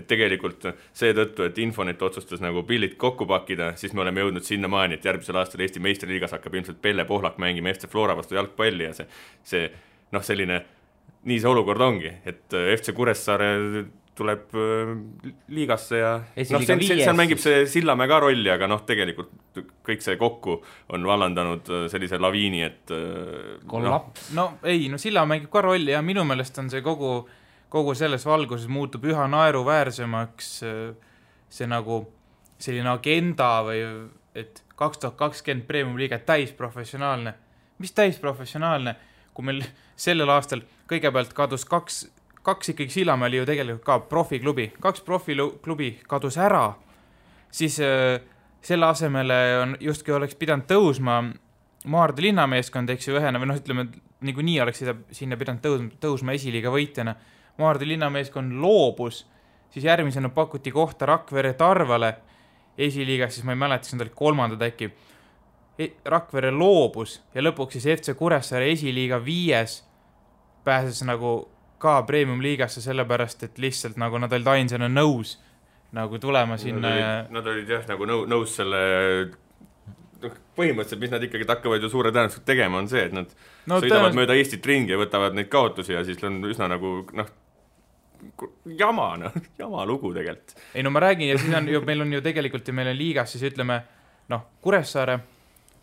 tegelikult seetõttu, et Infonet otsustas nagu pillid kokku pakkida, siis me oleme jõudnud sinna maani, et järgmisel aastal Eesti meistriliigas hakkab ilmselt Pelle Pohlak mängima FC Flora vastu jalgpalli ja see selline, nii see olukord ongi, et FC Kuressaare tuleb liigasse ja Esiliiga seal mängib see Sillamäe ka rolli, aga tegelikult kõik see kokku on vallandanud sellise laviini, et Sillamäe mängib ka rolli ja minu meelest on see kogu selles valguses muutub üha naeruväärsemaks see nagu selline agenda või et 2020 Premium-liiga täisprofessionaalne. Mis täisprofessionaalne, kui meil sellel aastal kõigepealt kadus kaks ikkagi Sillamäe oli ju tegelikult ka profiklubi, 2 profiklubi kadus ära, siis selle asemele on justkui oleks pidanud tõusma Maardu linnameeskond, eks ju ühena, või ütleme, nii oleks sinna pidanud tõusma esiliiga võitjana. Maardu linnameeskond loobus, siis järgmisena pakuti kohta Rakvere Tarvale esiliigas, siis ma ei mäleta, siis nad olid 3. äkki. Rakvere loobus ja lõpuks siis FC Kuressaare esiliiga 5 pääses nagu ka Premium-liigasse sellepärast, et lihtsalt nagu nad olid ainsana nõus nagu tulema sinna. Nad olid jah nagu nõus selle põhimõtteliselt, mis nad ikkagi hakkavad ju suure tõenäoliselt tegema, on see, et nad sõidavad mööda Eestit ringi ja võtavad neid kaotusi ja siis on üsna nagu jama lugu tegelikult. Ei ma räägin ja siis meil on ju tegelikult ja meil on liigas siis ütleme Kuressaare,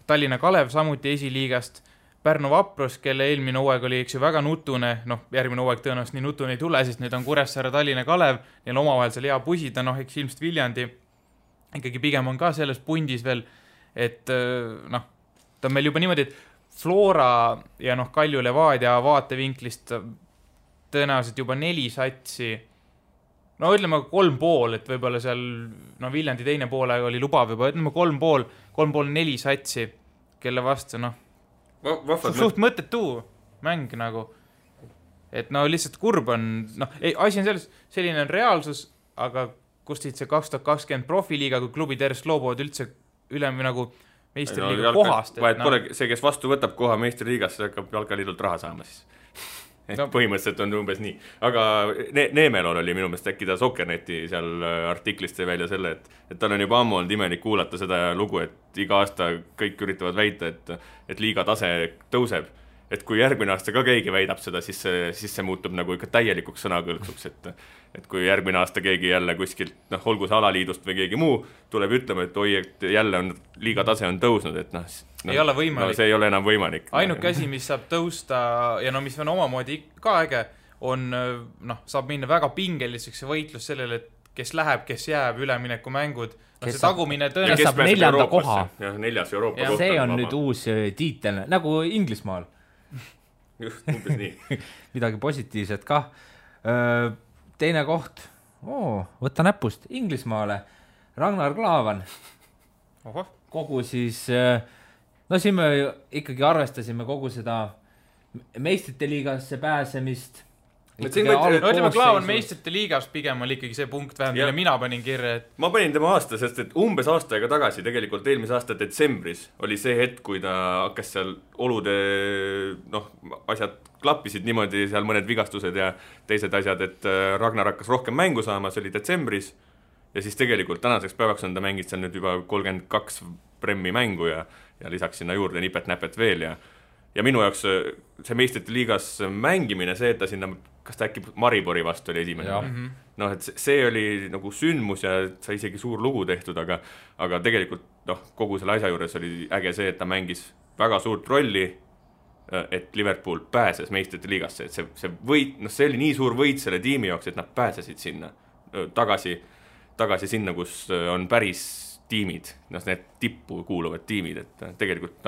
Tallinna Kalev samuti esiliigast, Pärnu Vaprus, kelle eelmine hooaeg oli eks ju väga nutune, järgmine hooaeg tõenäoliselt nii nutune ei tule, sest nüüd on Kuressaare, Tallinna Kalev, neil omavahel seal hea pusida, eks ilmselt Viljandi ikkagi pigem on ka selles pundis veel, et ta on meil juba niimoodi, et Flora ja Kalju Levadia vaatevinklist tõenäoliselt juba 4 satsi, ütleme 3,5, et võib-olla seal Viljandi teine poole oli lubav juba, ütleme 3,5-4 satsi, kelle vastu suht mõttetu mäng nagu, et lihtsalt kurb on, asi on selles, selline on reaalsus, aga kust siit see 2020 profiliiga, kui klubid järjest loobuvad üldse üle nagu meistriliiga kohast. Vahet pole see, kes vastu võtab koha meistriliigas, see hakkab jalkaliidult raha saama siis. Põhimõtteliselt on umbes nii. Aga Neemelon oli minu meelest äkki ta Sokkerneti seal artiklist välja selle, et tal on juba ammu olnud imelik kuulata seda lugu, et iga aasta kõik üritavad väita, et liiga tase tõuseb. Et kui järgmine aasta ka keegi väidab seda, siis see muutub nagu ikka täielikuks sõnakõlksuks, et kui järgmine aasta keegi jälle kuskilt, olgu see alaliidust või keegi muu, tuleb ütlema, et oi, et jälle on liiga tase on tõusnud, et ei ole võimalik. See ei ole enam võimalik. Ainuke asi, mis saab tõusta ja mis on omamoodi ka äge, on, saab minna väga pingeliseks võitlus sellele, et kes läheb, kes jääb, ülemineku mängud. See tagumine tõenäoliselt saab 4. koha. Ja 4. Euroopa kohta. See on nüüd uus tiitel, nagu Inglismaal. Just, umbes nii. Midagi positiivset ka. Teine koht, võtta näpust Inglismaale, Ragnar Klavan. Kogu siis, siin me ikkagi arvestasime kogu seda meistrite liigasse pääsemist. Ütleme, Klaavan meistrite liigas pigem oli ikkagi see punkt vähem, mille mina panin kirja. Ma panin tema aasta, sest et umbes aasta aega tagasi, tegelikult eelmise aasta detsembris oli see hetk, kui ta hakkas seal olude, asjad klappisid niimoodi, seal mõned vigastused ja teised asjad, et Ragnar hakkas rohkem mängu saama, see oli detsembris ja siis tegelikult tänaseks päevaks on ta mängid seal nüüd juba 32 Premmi mängu ja lisaks sinna juurde nipet-näpet veel ja minu jaoks see meistrite liigas mängimine, see, et ta sinna, kas ta äkki Maribori vastu oli esimene? Et see oli nagu sündmus ja sai isegi suur lugu tehtud, aga tegelikult kogu selle asja juures oli äge see, et ta mängis väga suurt rolli, et Liverpool pääses meistrite liigasse, et see võit, see oli nii suur võit selle tiimi jaoks, et nad pääsesid sinna tagasi sinna, kus on päris tiimid, need tippu kuuluvad tiimid, et tegelikult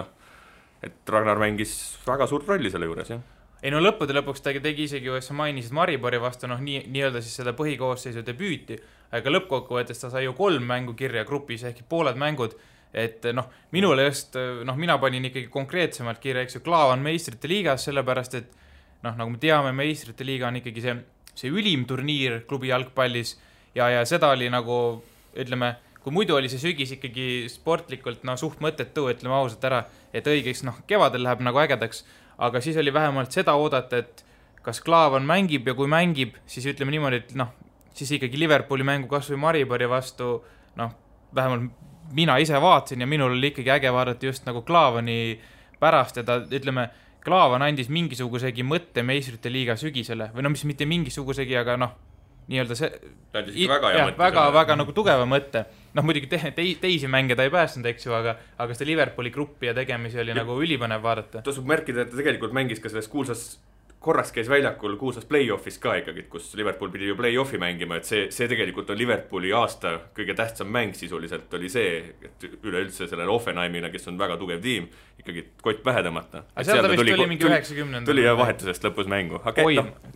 et Ragnar mängis väga suurt rolli selle juures, jah. Ei lõppude lõpuks ta tegi isegi, sa mainisid Maribori vastu, nii-öelda siis seda põhikoosseisu debüüti, aga lõppkokkuvõttes ta sai ju 3 mängu kirja grupis, ehk pooled mängud, et minule just, mina panin ikkagi konkreetsemalt kirja, eks ju, Klaavan meistrite liigas, sellepärast, et nagu me teame, meistrite liiga on ikkagi see ülim turniir klubi jalgpallis ja seda oli nagu, ütleme, kui muidu oli see sügis ikkagi sportlikult suht mõttetu, ütleme ausalt ära, et õigeks kevadel läheb nagu ägedaks, aga siis oli vähemalt seda oodata, et kas Klaavan mängib ja kui mängib, siis ütleme niimoodi, et siis ikkagi Liverpooli mängu kas või Maribori vastu, vähemalt mina ise vaatasin ja minul oli ikkagi äge vaadata just nagu Klaavani pärast ja ta, ütleme, Klaavan andis mingisugusegi mõtte meistrite liiga sügisele või mis mitte mingisugusegi, aga nii-öelda see väga nagu tugeva mõtte. Noh, muidugi teisi mänge ta ei päästnud, eks ju, aga seda Liverpooli gruppi ja tegemisi oli nagu ülipõnev vaadata. Tasub märkida, et ta tegelikult mängis ka selles kuulsas, korraks käis väljakul kuulsas play-offis ka ikkagi, kus Liverpool pidi ju play-offi mängima, et see tegelikult on Liverpooli aasta kõige tähtsam mäng sisuliselt oli see, et üleüldse sellele Offenheimile, kes on väga tugev tiim, ikkagi kott pähe tõmmata. Aga seal ta vist tuli mingi 90. Tuli ja vahetusest lõpus mängu. Aga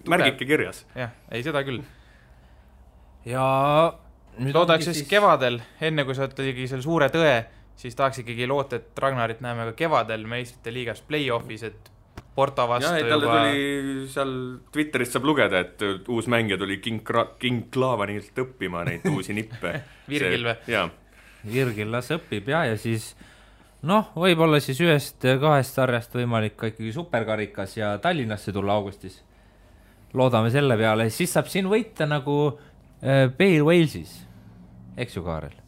märgike kirjas. Jah, ei seda küll. Ja loodaks siis kevadel, enne kui sa tegi selle suure tõe, siis tahaks ikkagi loota, et Ragnarit näeme ka kevadel meistrite liigas play-offis, et Porto vastu ja, talle tuli seal Twitterist saab lugeda, et uus mängija tuli King Klavanilt õppima neid uusi nippe. Virgil või? Jaa. Virgil las õpib ja siis võib-olla siis 1-2 sarjast võimalik ka ikkagi superkarikas ja Tallinnasse tulla augustis. Loodame selle peale, siis saab siin võita nagu Bale Walesis, eks ju, Kaarel?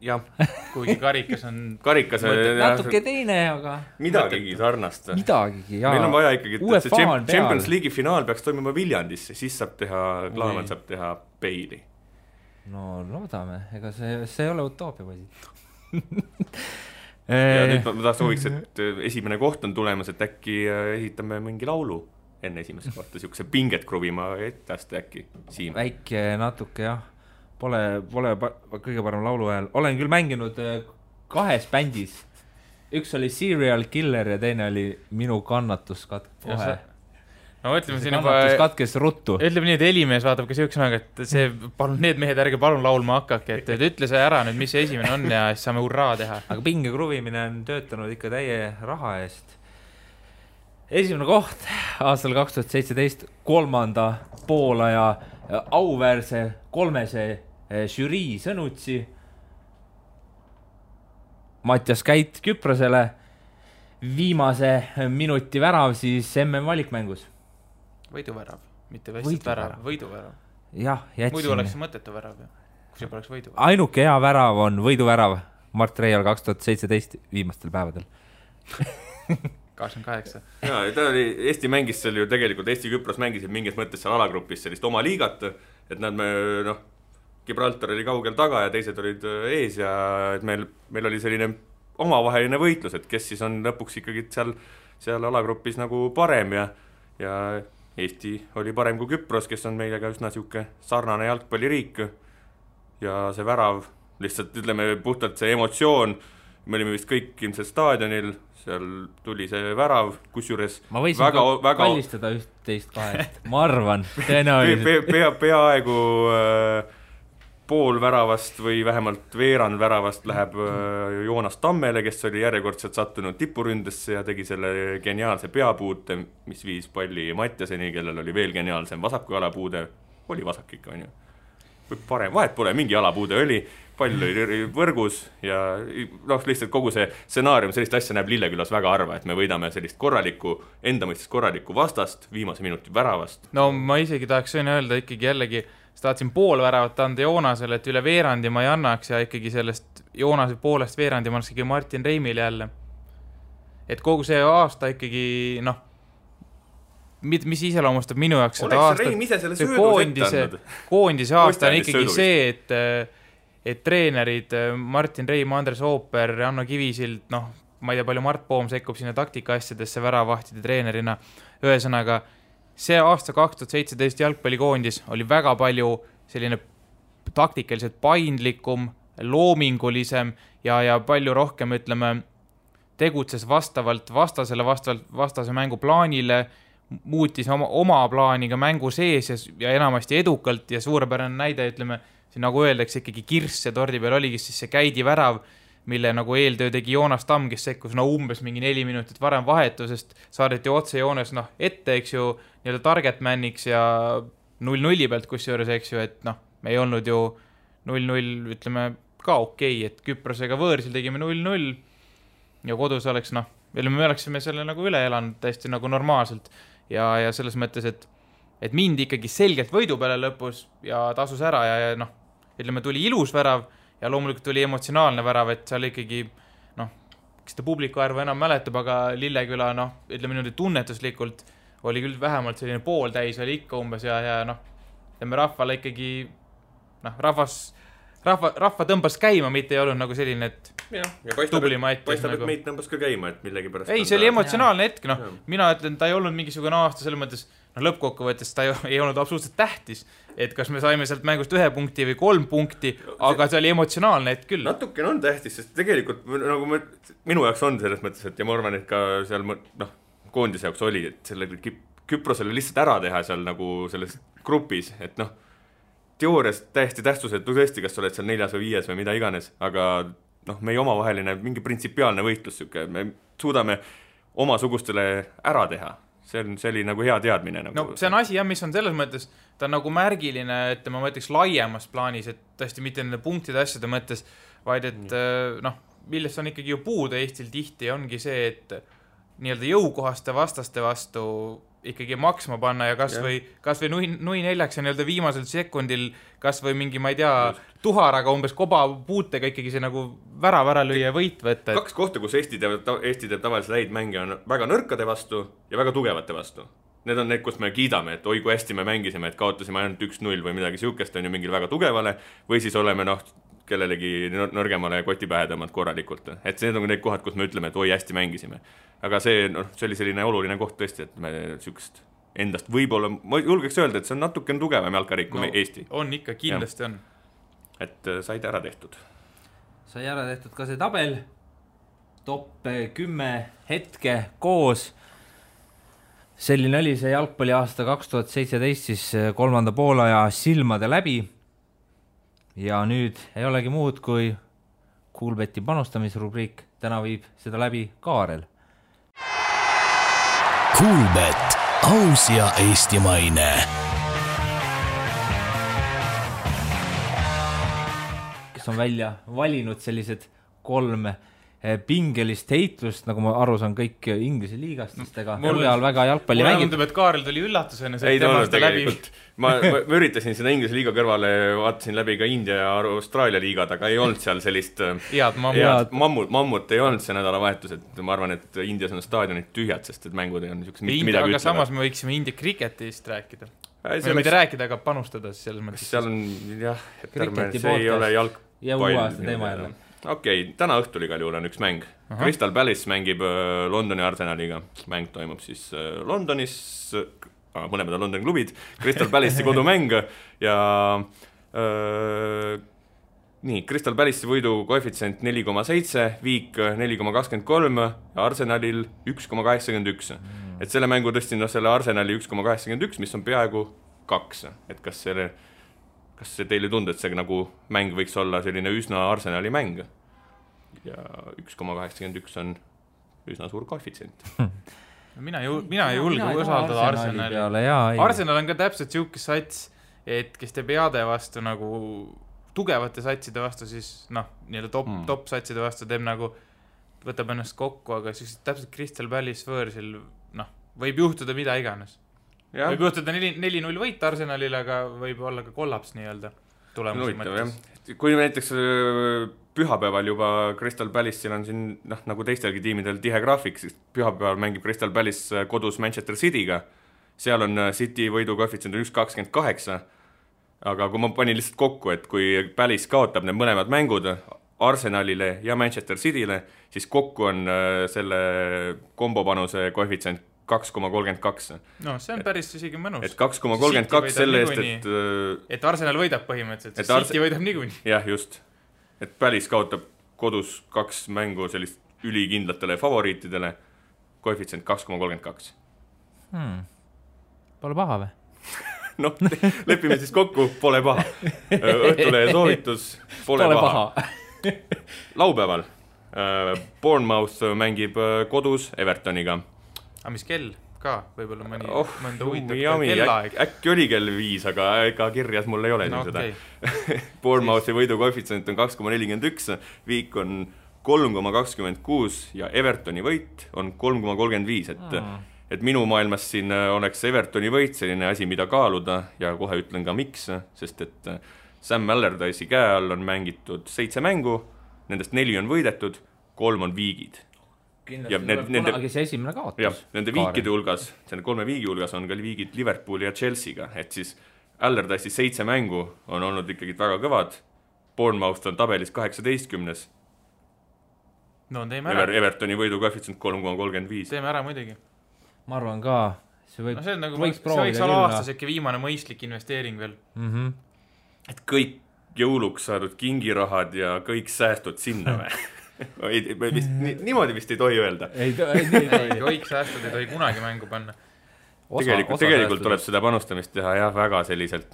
Jah. Kuigi karikas on natuke teine, aga midagigi sarnast. Midagigi, jaa. Meil on vaja ikkagi, et see Champions League'i finaal peaks toimuma Viljandisse, siis saab teha, Klaavan saab teha Bale'i. No loodame, ega see ei ole utoopia või. Ja nüüd ma sooviks, et esimene koht on tulemas, et äkki ehitame mingi laulu enne esimest kohta, siukse pinget kruvima ettast äkki Siim. Väike natuke, jah. Pole kõige parem laulu ajal. Olen küll mänginud 2 bändis. Üks oli Serial Killer ja teine oli Minu kannatus kohe. No ütleme siin juba katkes ruttu. Ütleme nii, et Elimees vaatab ka see üks aeg, et see, palun, need mehed ärge palun laulma hakkake, et ütle see ära nüüd, mis see esimene on ja siis saame hurraa teha. Aga pinge kruvimine on töötanud ikka täie raha eest. Esimene koht aastal 2017 3. poolaja auväärse 3. žürii Sõnutsi. Mattias Käit Küprosele. Viimase minuti värav siis MM valikmängus. Võiduvärav, mitte vestid värav, võiduvärav. Jah, jätsin. Muidu oleks mõttetu värav, kui see poleks võiduvärav. Ainuke hea värav on võiduvärav Mart Reial 2017 viimastel päevadel. 88. Ja, ta oli, Eesti mängis seal ju tegelikult, Eesti-Küpros mängisid mingis mõttes seal alagrupis sellist oma liigat, et nad Gibraltar oli kaugel taga ja teised olid ees ja et meil oli selline omavaheline võitlus, et kes siis on lõpuks ikkagi seal alagrupis nagu parem ja Eesti oli parem kui Küpros, kes on meilega üsna siuke sarnane jalgpalliriik ja see värav, lihtsalt ütleme puhtalt see emotsioon, me olime vist kõik ilmselt staadionil, seal tuli see värav, kusjuures ma võisin väga kallistada 1-2, ma arvan, peaaegu pool väravast või vähemalt veerand väravast läheb Joonas Tammele, kes oli järjekordselt sattunud tipuründesse ja tegi selle geniaalse peapuute, mis viis palli Mattiaseni, kellel oli veel geniaalsem vasaku jalapuude. Oli vasak ikka, on ju. Parem, vahet pole, mingi jalapuude oli, pall oli võrgus ja lihtsalt kogu see stsenaarium, sellist asja näeb Lillekülas väga harva, et me võidame sellist enda mõistes korralikku vastast, viimase minuti väravast. No ma isegi tahaks öelda ikkagi jällegi, tahtsin pool väravat anda Joonasele, et üle veerandi ma ei annaks ja ikkagi sellest Joonase poolest veerandi ma annaks ikkagi Martin Reimile jälle. Et kogu see aasta ikkagi, mis iseloomustab minu jaoks seda aastat, koondise aasta on ikkagi see, et treenerid Martin Reim, Andres Ooper, Anno Kivisild, ma ei tea palju Mart Poom sekkub sinna taktika asjadesse väravahtide treenerina, ühesõnaga see aasta 2017 jalgpallikoondis oli väga palju selline taktikaliselt paindlikum, loomingulisem ja palju rohkem, ütleme, tegutses vastavalt vastase mängu plaanile, muutis oma plaaniga mängu sees ja enamasti edukalt ja suurepärane näide, ütleme, siin nagu öeldakse ikkagi kirss ja tordi peal oligi siis see Käidi värav, mille nagu eeltöö tegi Joonas Tamm, kes sekkus umbes mingi 4 minutit varem vahetusest, saadeti otse Joonas ette, eks ju, nii-öelda target maniks ja 0-0 pealt kusjuures, eks ju, et me ei olnud ju 0-0, ütleme, ka okei, et Küprosega võõrsil tegime 0-0 ja kodus oleks, me oleksime selle nagu üle elanud täiesti nagu normaalselt ja selles mõttes, et mind ikkagi selgelt võidu peale lõpus ja tasus ära ja ütleme, tuli ilus värav ja loomulikult tuli emotsionaalne värav, et seal ikkagi, kes ta publiku arvu enam mäletab, aga Lilleküla, ütleme niimoodi tunnetuslikult oli küll vähemalt selline pooltäis oli ikka umbes ja rahvale ikkagi rahva tõmbas käima, mitte ei olnud nagu selline, et ja paistab, et meid tõmbas ka käima, et millegi pärast ei, see oli emotsionaalne hetk, mina ütlen, ta ei olnud mingisugune aasta selles mõttes, lõppkokkuvõttes ta ei olnud absoluutselt tähtis, et kas me saime sealt mängust 1 punkti või 3 punkti, aga see oli emotsionaalne hetk küll. Natukene on tähtis, sest tegelikult nagu minu jaoks on selles mõttes, et ja ma arvan, et ka seal koondise jaoks oli, et selle Küprosele lihtsalt ära teha seal nagu selles grupis, et teoorias täiesti tähtsusetu tõesti, kas sa oled seal 4. või 5. või mida iganes, aga meie omavaheline mingi printsipiaalne võitlus, me suudame omasugustele ära teha. See oli nagu hea teadmine. Nagu see on asi, mis on selles mõttes, ta on nagu märgiline, et ma mõtleks laiemas plaanis, et tõesti mitte nende punktide asjade mõttes, vaid et millest on ikkagi ju puudu Eestil tihti, ongi see, et nii-öelda jõukohaste vastaste vastu ikkagi maksma panna ja kas või nui neljaks ja nii-öelda viimasel sekundil kas või mingi, ma ei tea, tuharaga umbes koba puutega ikkagi see nagu ära lüüa võit võtta. 2 kohta, kus Eesti teeb tavaliselt häid mänge on väga nõrkade vastu ja väga tugevate vastu. Need on need, kus me kiidame, et oi kui hästi me mängisime, et kaotasime ainult 1-0 või midagi siukest on ju mingil väga tugevale või siis oleme kellelegi nõrgemale kotipähe tõmmanud korralikult. Et need on need kohad, kus me ütleme, et oi hästi mängisime. Aga see oli selline oluline koht tõesti, et me siukest endast võib-olla, ma julgeks öelda, et see on natuke tugevam jalkarik kui Eesti. On ikka, kindlasti on. Et said ära tehtud. Sai ära tehtud ka see tabel, top 10 hetke koos. Selline oli see jalgpalli aasta 2017 siis 3. poolaja silmade läbi. Ja nüüd ei olegi muud kui Kuulbeti panustamisrubriik. Täna viib seda läbi Kaarel. Kuulbet, aus ja eestimaine. Kes on välja valinud sellised 3 pingelist heitlust, nagu ma aru saan kõik Inglise liigastustega. Mul on väga jalgpalli mängib. Mulle tundub, et Kaarel tuli üllatusena. Ei tulnud tegelikult. Ma üritasin seda Inglise liiga kõrvale, vaatasin läbi ka India ja Austraalia liigad, aga ei olnud seal sellist mammut ei olnud see nädalavahetus, et ma arvan, et Indias on staadionid tühjad, sest et mängud ei olnud midagi ütlevad. Aga samas me võiksime India kriketist rääkida. Me mitte rääkida, aga panustada selles mõttes. Seal on, jah, see ei ole jalgpall. Ja uue aasta teema jälle. Okei, täna õhtul igal juhul on üks mäng. Crystal Palace mängib Londoni Arsenaliga. Mäng toimub siis Londonis, mõlemad on Londoni klubid, Crystal Palace'i kodumäng ja nii, Crystal Palace'i võidu koefitsient 4,7, Viik 4,23 ja Arsenalil 1,81. Et selle mängu tõstin selle Arsenali 1,81, mis on peaaegu 2. Et kas see teile tundub, et see nagu mäng võiks olla selline üsna Arsenali mäng? Ja 1,81 on üsna suur koefitsient. Mina ei julge usaldada Arsenali. Arsenal on ka täpselt siuke sats, et kes teeb heade vastu nagu tugevate satside vastu, siis nii-öelda top satside vastu teeb nagu, võtab ennast kokku, aga siis täpselt Crystal Palace võõrsil võib juhtuda mida iganes. Ja. Võib juhtuda 4-0 võit Arsenalil, aga võib olla ka kollaps nii-öelda tulemuse mõttes. Kui näiteks pühapäeval juba Crystal Palace'il on siin, nagu teistelgi tiimidel tihe graafik, siis pühapäeval mängib Crystal Palace kodus Manchester City'ga. Seal on City võidu koefitsient 1,28, aga kui ma panin lihtsalt kokku, et kui Palace kaotab need mõlemad mängud Arsenalile ja Manchester City'le, siis kokku on selle kombopanuse koefitsient 2,32. No, see on päris isegi mõnus. Et 2,32 selle eest, et Arsenal võidab põhimõtteliselt, et City võidab niikuinii. Jah, just. Et Palace kaotab kodus 2 mängu sellist ülikindlatele favoriitidele, koefitsient 2,32. Pole paha või? Lepime siis kokku, pole paha. Õhtulehe soovitus, pole paha. Laupäeval Bournemouth mängib kodus Evertoniga. Aga mis kell ka? Võib-olla mõnda huvitav kellaaeg. Äkki oli kell 5, aga ega kirjas mul ei ole seda. Bournemouthi võidu koefitsient on 2,41, Viik on 3,26 ja Evertoni võit on 3,35, et minu maailmas siin oleks Evertoni võit selline asi, mida kaaluda ja kohe ütlen ka miks, sest et Sam Allardyce'i käe all on mängitud 7 mängu, nendest 4 on võidetud, 3 on viigid. Kindlasti tuleb kunagi see esimene kaotus. Jah, nende viikide hulgas, selle 3 viigi hulgas on ka viigid Liverpooli ja Chelsea'ga, et siis Allardyce'i 7 mängu on olnud ikkagi väga kõvad. Bournemouth on tabelis 18. No teeme ära. Evertoni võidu koefitsient 3,35. Teeme ära muidugi. Ma arvan ka, see võiks olla aastas äkki viimane mõistlik investeering veel. Et kõik jõuluks saadud kingirahad ja kõik säästud sinna või? Niimoodi vist ei tohi öelda. Kõik säästud ei tohi kunagi mängu panna. Tegelikult tuleb seda panustamist teha väga selliselt,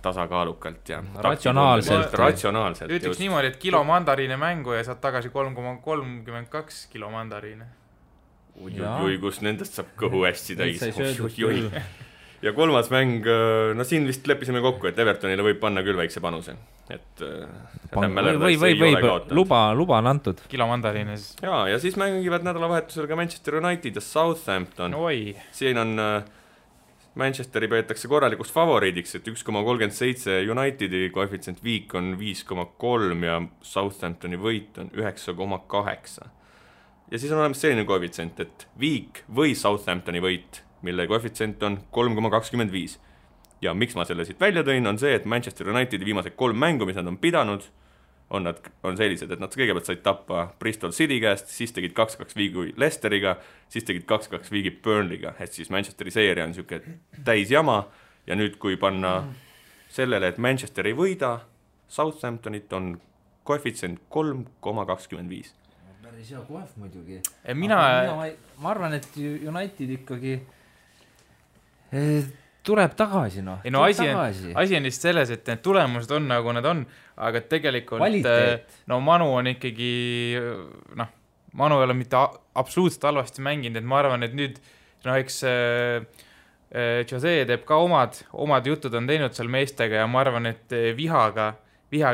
tasakaalukalt ja ratsionaalselt. Ütleks niimoodi, et kilo mandariine mängu ja saad tagasi 3,32 kilo mandariine. Ui, kus nendest saab kõhu hästi täis. Ja kolmas mäng, siin vist leppisime kokku, et Evertonile võib panna küll väikse panuse. Luba on antud. Kilo mandariine. Ja siis mängivad nädalavahetusel ka Manchester United ja Southampton. Siin on Manchesteri peetakse korralikuks favoriidiks, et 1,37 Unitedi koefitsient viik on 5,3 ja Southamptoni võit on 9,8. Ja siis on olemas selline koefitsient, et viik või Southamptoni võit, mille koefitsient on 3,25. Ja miks ma selle siit välja tõin, on see, et Manchester Unitedi viimased 3 mängu, mis nad on pidanud, on sellised, et nad kõigepealt said tappa Bristol City käest, siis tegid 2-2 viigi Leicesteriga, siis tegid 2-2 viigi Burnleyga, et siis Manchesteri seeria on siuke täis jama ja nüüd kui panna sellele, et Manchester ei võida, Southamptonit on koefitsient 3,25. Päris hea koef muidugi. Ma arvan, et United ikkagi tuleb tagasi. Asi on vist selles, et need tulemused on nagu nad on, aga tegelikult Manu on ikkagi Manu ei ole mitte absoluutselt halvasti mänginud, et ma arvan, et nüüd eks Jose teeb ka omad jutud on teinud seal meestega ja ma arvan, et vihaga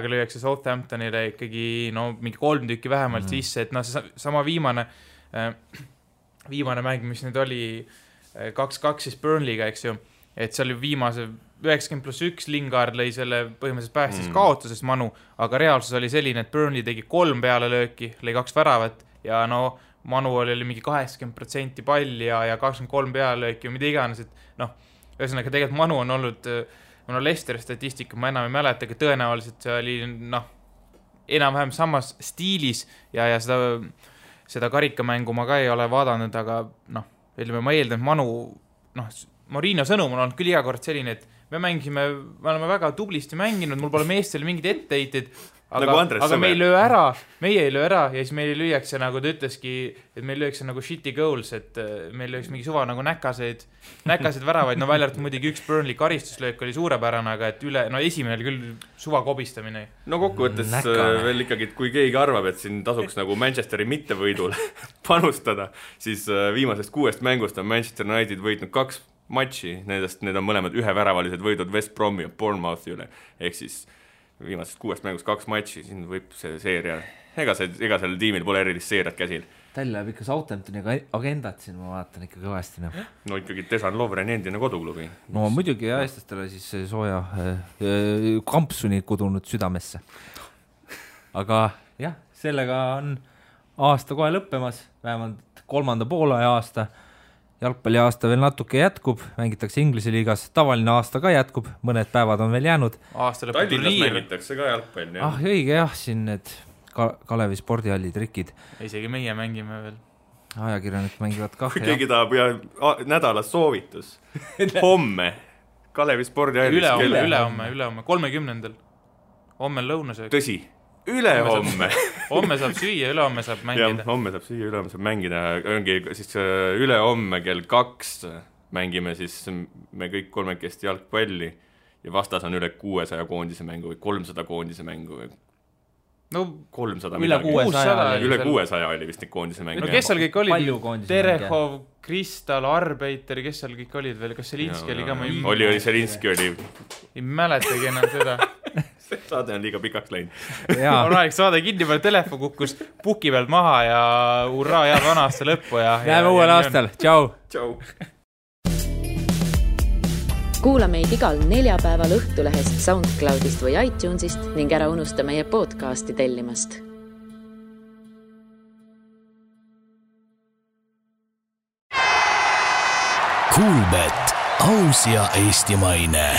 lüüakse Southamptonile ikkagi mingi 3 tükki vähemalt sisse, et see sama viimane mäng, mis nüüd oli 2-2 siis Burnleyga, eks ju, et see oli viimase 90+1 Lingard lõi selle põhimõtteliselt päästis kaotusest Manu, aga reaalsus oli selline, et Burnley tegi 3 pealelööki, lõi 2 väravat ja Manu oli mingi 80% palli ja 23 pealelööki ja mida iganes, et ühesõnaga tegelikult Manu on olnud Leicesteri statistika, ma enam ei mäleta, aga tõenäoliselt see oli enam-vähem samas stiilis ja seda karikamängu ma ka ei ole vaadanud, aga ma eeldan, et Manu Mourinho sõnum on olnud küll iga kord selline, et me oleme väga tublisti mänginud, mul pole meestele mingid etteheited, aga me ei löö ära ja siis meil lüüakse, nagu ta ütleski, et meil lüüakse nagu shitty goals, et meil lüüakse mingi suva nagu näkaseid väravaid, välja arvatud muidugi üks Burnley karistuslöök oli suurepärane, aga et esimene oli küll suva kobistamine. Kokkuvõttes veel ikkagi, et kui keegi arvab, et siin tasuks nagu Manchesteri mittevõidul panustada, siis viimasest 6 mängust on Manchester United võitnud 2 matši, need on mõlemad üheväravalised võidud West Bromi ja Bournemouthi üle, ehk siis viimasest 6 mängust 2 matši, siin võib see seeria, ega sellel tiimil pole erilist seeriat käsil. Tal läheb ikka Southamptoni agendat siin, ma vaatan ikka kõvasti. Ikkagi Dejan Lovren endine koduklubi. Muidugi ja eestlastele siis sooja kampsuni kudunud südamesse. Aga jah, sellega on aasta kohe lõppemas, vähemalt 3. poolaja aasta. Jalgpalli aasta veel natuke jätkub, mängitakse Inglise liigas, tavaline aasta ka jätkub, mõned päevad on veel jäänud. Tallinnas mängitakse ka jalgpalli. Õige jah, siin need Kalevi spordihalli trikid. Isegi meie mängime veel. Ajakirjanik mängivad ka. Kui keegi tahab nädalas soovitus. Homme Kalevi spordihallis. Ülehomme, 30. Homme lõunasöök. Tõsi, ülehomme. Homme saab süüa, ülehomme saab mängida. Homme saab süüa, ülehomme saab mängida. Ongi siis ülehomme kell 2 mängime siis me kõik 3 jalgpalli ja vastas on üle 600 koondise mängu või 300 koondise mängu või 300 midagi. Üle 600 oli vist neid koondise mängu. Kes seal kõik olid? Terehov, Kristal, Arbeiter, kes seal kõik olid veel? Kas Selinski oli ka? Oli Selinski oli. Ei mäletagi enam seda. See saade on liiga pikaks läinud. On aeg saade kinni peal, telefon kukkus puki pealt maha ja urraa jääb vana aasta lõppu. Näeme uuel aastal. Tšau! Kuula meid igal neljapäeval Õhtulehest, SoundCloudist või iTunesist ning ära unusta meie podcasti tellimast. Kuulbet, aus ja eestimaine.